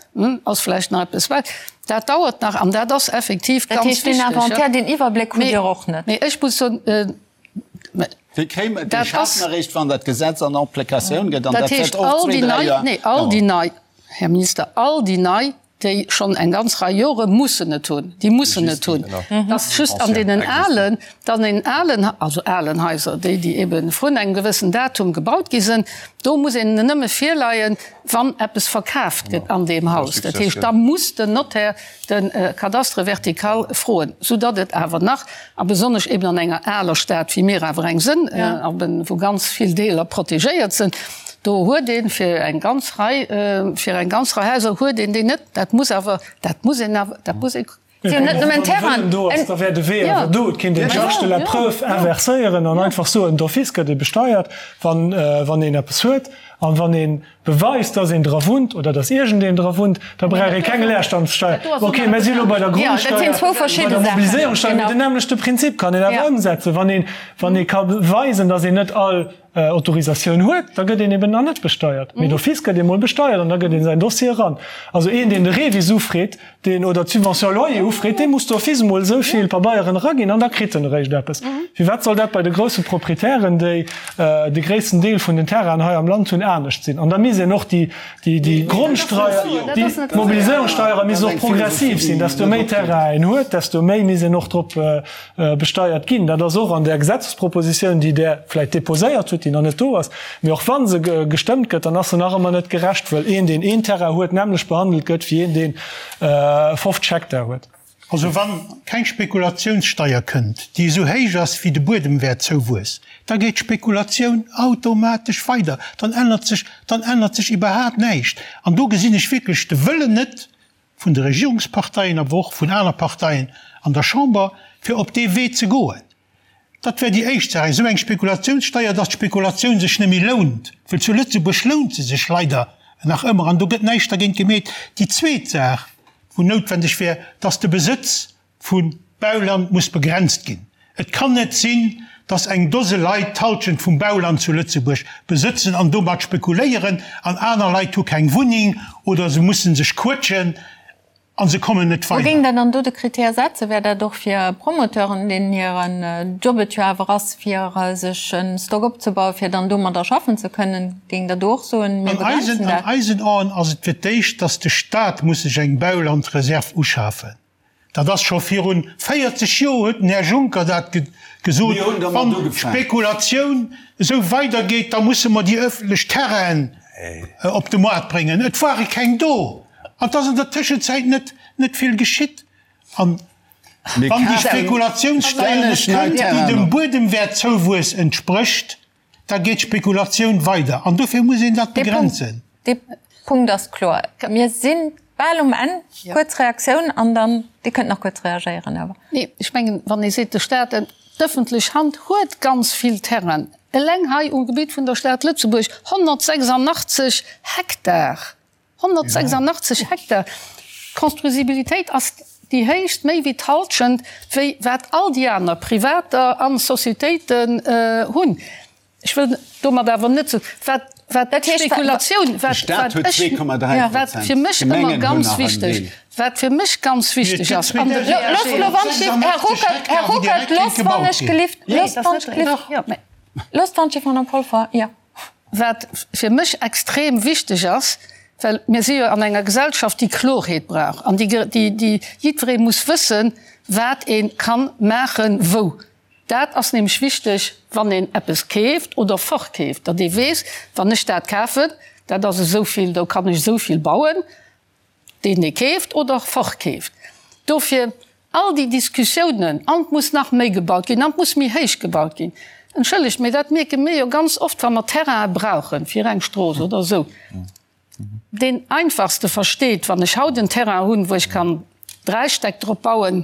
ass vläicht nach eppes wäit. Dat dauert nach an dat ass effektiv ganz wichteg. Dat heescht, deen Inventaire, deen Iwwerbléck hutt Dir och net? Mee ech muss soen, Dee kréie mer, dee schafe mer eréischt, wann dat Gesetz an Applikatioun gëtt, an dat wäert och zwee, dräi Joer daueren. All déi nei, Här Minister, all déi nei déi schonn eng ganz Rei Jore mussen et hunn, déi mussen et hunn, dass just an deenen alen, an deenen alen, also alen Haiser, déi, déi ebe vrun engem gewëssen Datum gebaut gi sinn, do muss een nëmme virleien, wann eppes verkaaft gëtt an deem Haus. Dat heescht, da muss den Notaire de Cadastre vertical froen, soudatt et awer nach, a besonnesch eben an enger aler Stad, wéi mir awer eng sënn, wou ganz vill Deeler protegéiert sinn, Do huet ee fir eng ganz Rei, fir eng ganz Rei Haiser huet een déi net. Dat muss awer, dat muss een awer, dat muss ee. Si hunn net nëmmen Terrain. Do ass, da wär de Wee awer do. Et kéint een d'Charge de la preuve inverséieren an einfach soen, d'office gëtt ee besteiert, wann, wann een eppes huet. An wann ee beweist, dass een dra wunnt oder dass iergendeen dra wunnt, da brauch ee keng Leerstandssteier. Okay, mir si elo bei der Grondsteier, bei der Mobiliséierungssteier, mee den nämmlechte Prinzip kann een awer ëmsetzen, wann een, wann ee ka beweisen, dass een net all Autorisatioun huet, da gëtt een eben nach net besteiert. Mee d'office gëtt ee mol besteiert an da gëtt een säin Dossier eran. Also een, deen de REVIS ufreet, deen, oder d'Subvention loyer ufreet, dee muss d'office emol esou vill Pabeieren eraginn an da kritt en eréischt eppes. Firwat soll dat bei de grousse Proprietären, déi de gréissten Deel vun den Terrainen hei am Land hunn, anescht sinn? An da misst een och déi, déi Grondsteier, déi Mobiliséierungssteiere misst och progressiv sinn. Desto méi Terrain een huet, desto méi misst een och drop besteiert ginn. Dat ass och an där Gesetzespropositioun, déi Der vläicht déposéiert hutt, déi nach net do ass. Mee och wa se gestëmmt gëtt, dann ass se nach ëmmer net gerecht, wëll een, deen een Terrain huet, d'nämmlecht behandelt gëtt wéi een, deen 50 Hektar huet. Also wann keng Spekulatiounssteier kënnt, déi esou héich ass wéi de Buedemwäertzouwuess, da geet d'Spekulatioun automatesch weider, dann ännert sech, dann ännert sech iwwerhaapt näischt. An do gesinn ech wierklech de Wëllen net, vun de Regierungsparteien, awer och vun aner Parteien an der Chamber, fir op dee Wee ze goen. Dat wär déi éischt Saach, esou eng Spekulationssteier, dass d'Spekulatioun sech net méi lount, well zu Lëtzebuerg lount se sech leider nach ëmmer an do gëtt näischt dergéint gemeet. Déi zweet Saach, wou noutwendeg wär, dass de Besëtz vu Bauland muss begrenzt ginn. Et kann net sinn, dass eng Dose Leit d'Halschent vum Bauland zu Lëtzebuerg besëtzen an domat spekuléieren an aner Leit hu keng Wunneng oder se musse sech quëtschen a se kommen net Wou géing weider. Der dann do de Krittär setzen? Wär dat och fir Promoteuren, deenen hiren Job et jo awer ass, fir sech e Stock opzebauen, fir dann domadder schaffen ze kënnen? Géing Der do och soen, mir An eisen, begrenzen an dat? eisen Aen ass et fir d'éischt, dass de Stat muss sech eng Baulandreserv uschafen. Dat ass scho virun 40 Joer huet den Här Juncker dat gesot, wann d'Spekulatioun esou weidergeet, da musse mer déi öffentlech Terrainen op de Moart bréngen. Et ware keng do an et ass an der Tëschenzäit net net vill geschitt. An wann déi Spekulatiounssteier net kënnt, déi dem Buedemwäertzouwuess entsprécht, Da geet d'Spekulatioun weider an dofir muss een dat begrenzen. Dee Punkt ass kloer. Mir si bal um Enn. Kuerz Reaktioun an dann, Dir kënnt nach kuerz reagéieren awer. Nee, ech mengen, wann ee seet, de Stat, d'ëffentlech Hand huet ganz vill Terrainen, eleng hei um Gebitt vun der Stad Lëtzebuerg 186 Hektar, 186 Hektar! D'Construisibilitéit ass déi héichst, méi wéi d'Halschent, wéi wat all déi aner Privater a Sociétéiten hunn. Ech wëll domat awer net soen, wat, wat d'Spekulatioun, wat, wat ech, wat fir mech ëmmer ganz wichteg, wat fir mech ganz wichteg ass an de Här Ruckert, loosst wann ech gelift, loosst wann ech Madame Polfer, jo. Wat fir mech extrem wichteg ass. Well mir si jo an enger Gesellschaft, déi Klorheet brauch an déi, déi jiddweree muss wëssen, wat ee ka maachen, wou. Dat ass nämlech wichteg, wann een eppes keeft oder verkeeft, datt ee weess, wann ech dat kafen, dat ass esou vill, do kann ech esou vill bauen, deen ee keeft oder verkeeft. Dofir all déi Diskussiounen, an et muss nach méi gebaut ginn, an et muss méi héich gebaut ginn, entschëllegt, mee dat mierke mir jo ganz oft, wa mer Terraine brauche fir eng Strooss oder esou. Deen Einfachste versteet, wann ech haut en Terrain hunn, wou ech kann 3 Stäck drop bauen,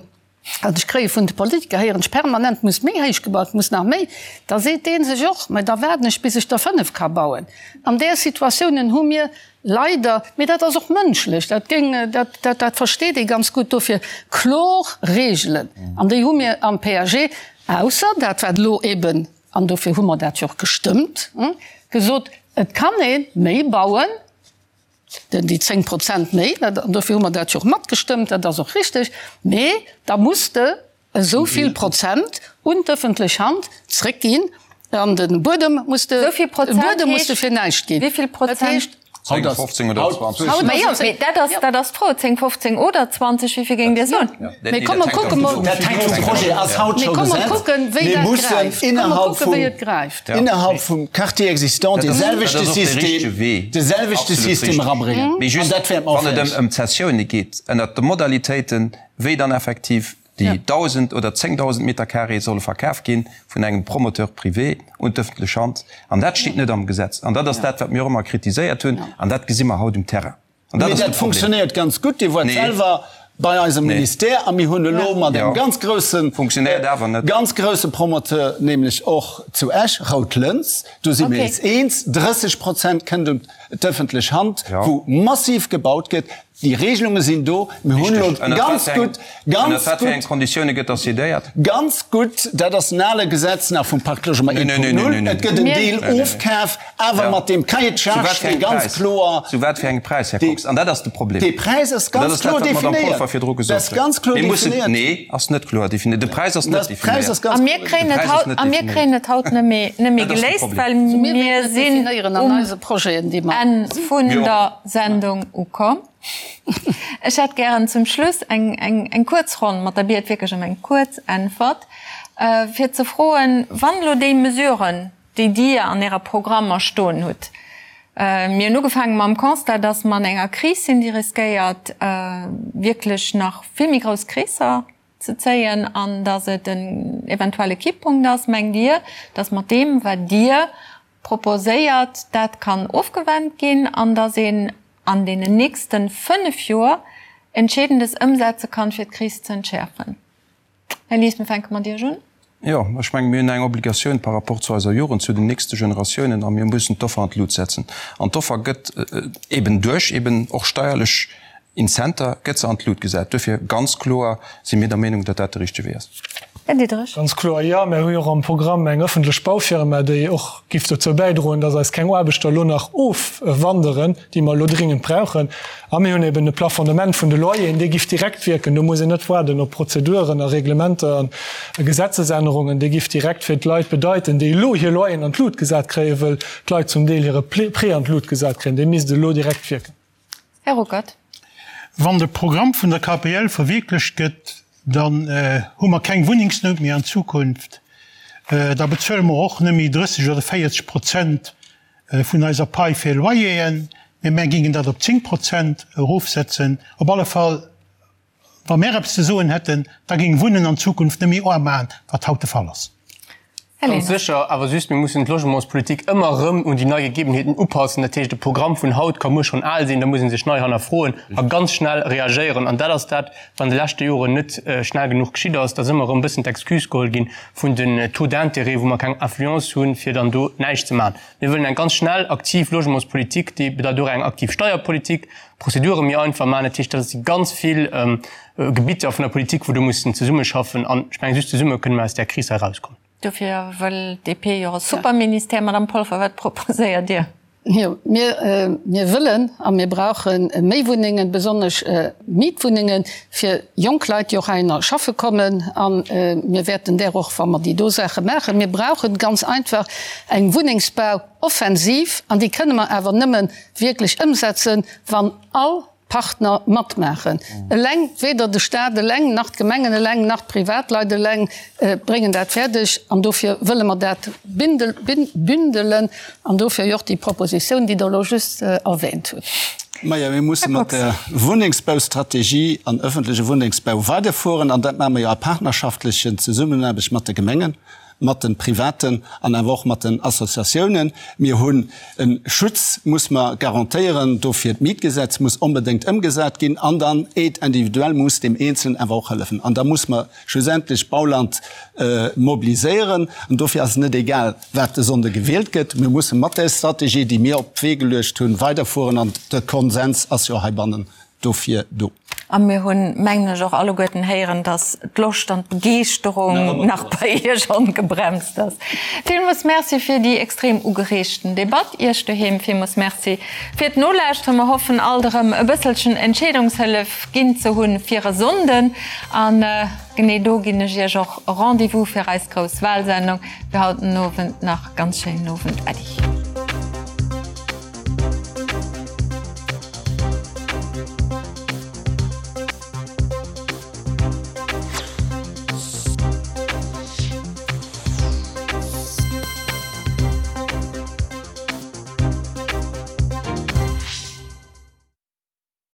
an ech kréie vun de Politiker, héieren ech permanent, muss méi héich gebaut, muss nach méi, da seet dee sech och, mä da waarden ech bis ech der 5 ka bauen. An där Situatiounen hu mir leider, mee dat ass och mënschlech, dat géing, dat, dat, dat versteet ee ganz gutt, dofir kloer Reegelen, an déi hu mir am PAG, ausser dat wat elo eben, an dofir hu mer dat jo och gestëmmt, gesot, et kann ee méi bauen, den déi 10 Prozent méi, an dofir hu mer dat jo och matgestëmmt, dat ass och richtig, mee da muss de esou vill Prozent un d'ëffentlech Hand zréckginn an de Buedem muss de, de Buedem muss de fir näischt ginn. Wéi vill Prozent? 10, 15 oder 20. Majo, mee dat ass, dat ass d'Fro, 10, 15 oder 20, wéi vill géingt Dir soen? Mee komm mer kucke mol, Dat hänkt vum Projet, ass haut scho Gesetz. Mir mussen innerhalb vum, innerhalb vum Quartier existant dee selwechte System, dee selwechte System erabréngen. Mee just, wann et ëm d'Zessioune geet, ënnert de Modalitéiten, wéi dann effektiv déi 1.000 oder 10.000 Meter carré solle verkaf gi vun engem Promoteur privé un d'ëffentlech Hand. An dat steet net am Gesetz. An dat ass dat, wat mir och ëmmer kritiséiert hunn. An dat gesi mer haut um Terrain. An dat ass de Problem. Mee dat funktionéiert ganz gutt. Dir woart selwer bei eisem Ministère a mir hunn elo mat engem ganz groussen, ganz grousse Promoteur, nämlech och zu Esch, Rout Lëns, do si mir eis eens, 30 Prozent kënnt un d'ëffentlech Hand, wou massiv gebaut gëtt. Déi Regelunge sinn do. Mir hunn elo ganz gutt, ganz gutt. Ënner wat Konditioune gëtt dat decidéiert? Ganz gutt, dat ass en ale Gesetz nach vum Pacte Logement 1.0. Et gëtt en Deel ofkaf, awer mat deem Cahier de charges, dee ganz kloer. Zu wat fir engem Präis, Här Kox? An dat ass de Problem. Dee Präis ass ganz kloer definéiert. Dat ass ganz kloer definéiert. Nee, ass net kloer definéiert. De Präis ass net definéiert. A mir kréien et haut, a mir kréien et haut net méi, net méi geléist, well mir sinn um Enn vun der Sendung ukomm. Ech hätt gären zum Schluss eng, eng, eng kuerz Ronn mat der Biet wierklech ëm eng kuerz Äntwert, fir ze froen, wann elo déi Mesuren, déi Dir an Ärer Programmer stoen hutt, mir hunn ugefaange mam Constat, dass mer an enger Kris sinn, déi riskéiert wierklech nach vill méi grouss Kreesser ze zéien an dass et en eventuelle Kipppunkt ass, mengt Dir, dass mat deem, wat Dir proposéiert, dat kann ofgewennt ginn an dass een an deenen nächste 5 Joer Entscheedendes ëmsetze kann, fir d'Kris ze entschäerfen? Här Lies, mir fänke mat Iech un. Jo, ech menge mir hunn eng Obligatioun par rapport zu eiser Jugend, zu den nächste Generatiounen a mir mussen d'Offer an d'Lut setzen. An d'Offer gëtt eben duerch eben och steierlech Incenter gëtt se an d'Lut gesat. Duerfir ganz kloer si mir der Meenung, datt dat de richtege Wee ass. Här Diderich. Ganz kloer jo. Mir hu jo och am Programm eng ëffentlech Baufirma, déi och giff dozou bäidroen, datt eis keng Aarbechter elo nach ofwanderen, déi mer elo dringend brauchen. A mir hunn eben e Plafonnement vun de Loyeren, dee giff direkt wierken. Do muss een net waarden op Prozeduren a Reglementer a Gesetzesännerungen. Dee giff direkt fir d'Leit bedeiten, déi elo hir Loyeren an d'Lut gesat kréien, wëll d'Leit zum Deel hire Prêt an d'Lut gesat kréien, dee misst elo direkt wierken. Här Ruckert. Wann de Programm vun der KPL verwierklecht gëtt, dann hu mer keng Wunnengsnout méi an Zukunft. Da bezuele mer och net méi 30 oder 40 Prozent vun eiser Pai fir Loyeren, mee mär géingen dat op 10 Prozent erofsetzen. Op alle Fall, wa mär eppes ze soen hätten, da géing Wunnen an Zukunft net méi aarm maachen, wat haut de Fall ass. Ganz sécher, awer just, mir mussen d'Logementspolitik ëmmer erëm un déi nei Gegebenheeten upassen. Dat heescht, e Programm vun haut ka muer schonn al sinn, da muss ee sech nei hannerfroen a ganz schnell reagéieren. An dat ass dat, wat an de leschte Joren net schnell genuch geschitt ass, dass ëmmer erëm e bëssen d'Excuse geholl ginn vun den Taux d'intérêt, wou mer keng Influence hunn, fir dann do näischt ze maachen. Mir wëllen eng ganz schnell, aktiv Logementspolitik, déi bedeit och eng aktiv Steierpolitik, Prozedure méi einfach maachen. Dat heescht, dat si ganz vill Gebitter vun der Politik, wou do mussen zesummeschaffen. An ech mengen, just zesumme kënne mer aus där Kris hei erauskommen. Dofir wëll d'DP jo e Superministère. Madame Polfer, wat proposéiert Dir? Jo, mir, mir wëllen a mir brauche méi Wunnengen, besonnesch Mietwunnengen fir jonk Leit, déi och heihinner schaffe kommen. A mir wäerten där och, wa mer déi do Saache maachen, mir brauche ganz einfach eng Wunnengsbauoffensiv an déi kënne mer awer nëmme wierklech ëmsetzen, wann all Partner matmaachen. Eleng, weder de Staat eleng, nach d'Gemengen eleng, nach d'Privatleit eleng bréngen dat fäerdeg. An dofir wëlle mer dat bündelen an dofir jo och déi Propositioun, déi Der elo just erwähnt hutt. Majo, mir musse mat der Wunnengsbaustrategie an öffentleche Wunnengsbau weiderfueren. An dat maache mer jo a partnerschaftlechen Zesummenaarbecht mat de Gemengen. mat de Privaten an awer och mat den Associatiounen. Mir hunn e Schutz, muss mer garantéieren. Dofir d'Mietgesetz muss onbedéngt ëmgesat ginn an dann Aide individuelle muss deem Eenzelen awer och hëllefen. An da muss mer schlussendlech Bauland mobiliséieren. An dofir ass et net egal, wat de Sonnde gewielt gëtt. Mir musse mat där Strategie, déi mir op d'Wee geluecht hunn, weiderfueren. An de Konsens ass jo heibannen dofir do. A mir hunn, mengen ech, och alleguerten héieren, dass d'Loscht an d'Begeeschterung nach bei Iech ongebremst ass. Villmools Merci fir déi extrem ugereegten Debatt. Iech doheem villmools Merci fir d'Nolauschteren. Mer hoffen alt erëm e bësselchen Entscheedungshëllef ginn ze hunn fir e Sonnden. A genee do ginn ech Iech och Rendez-vous fir eis grouss Wahlsendung fir haut den Owend. Nach ganz schéinen Owend. Äddi.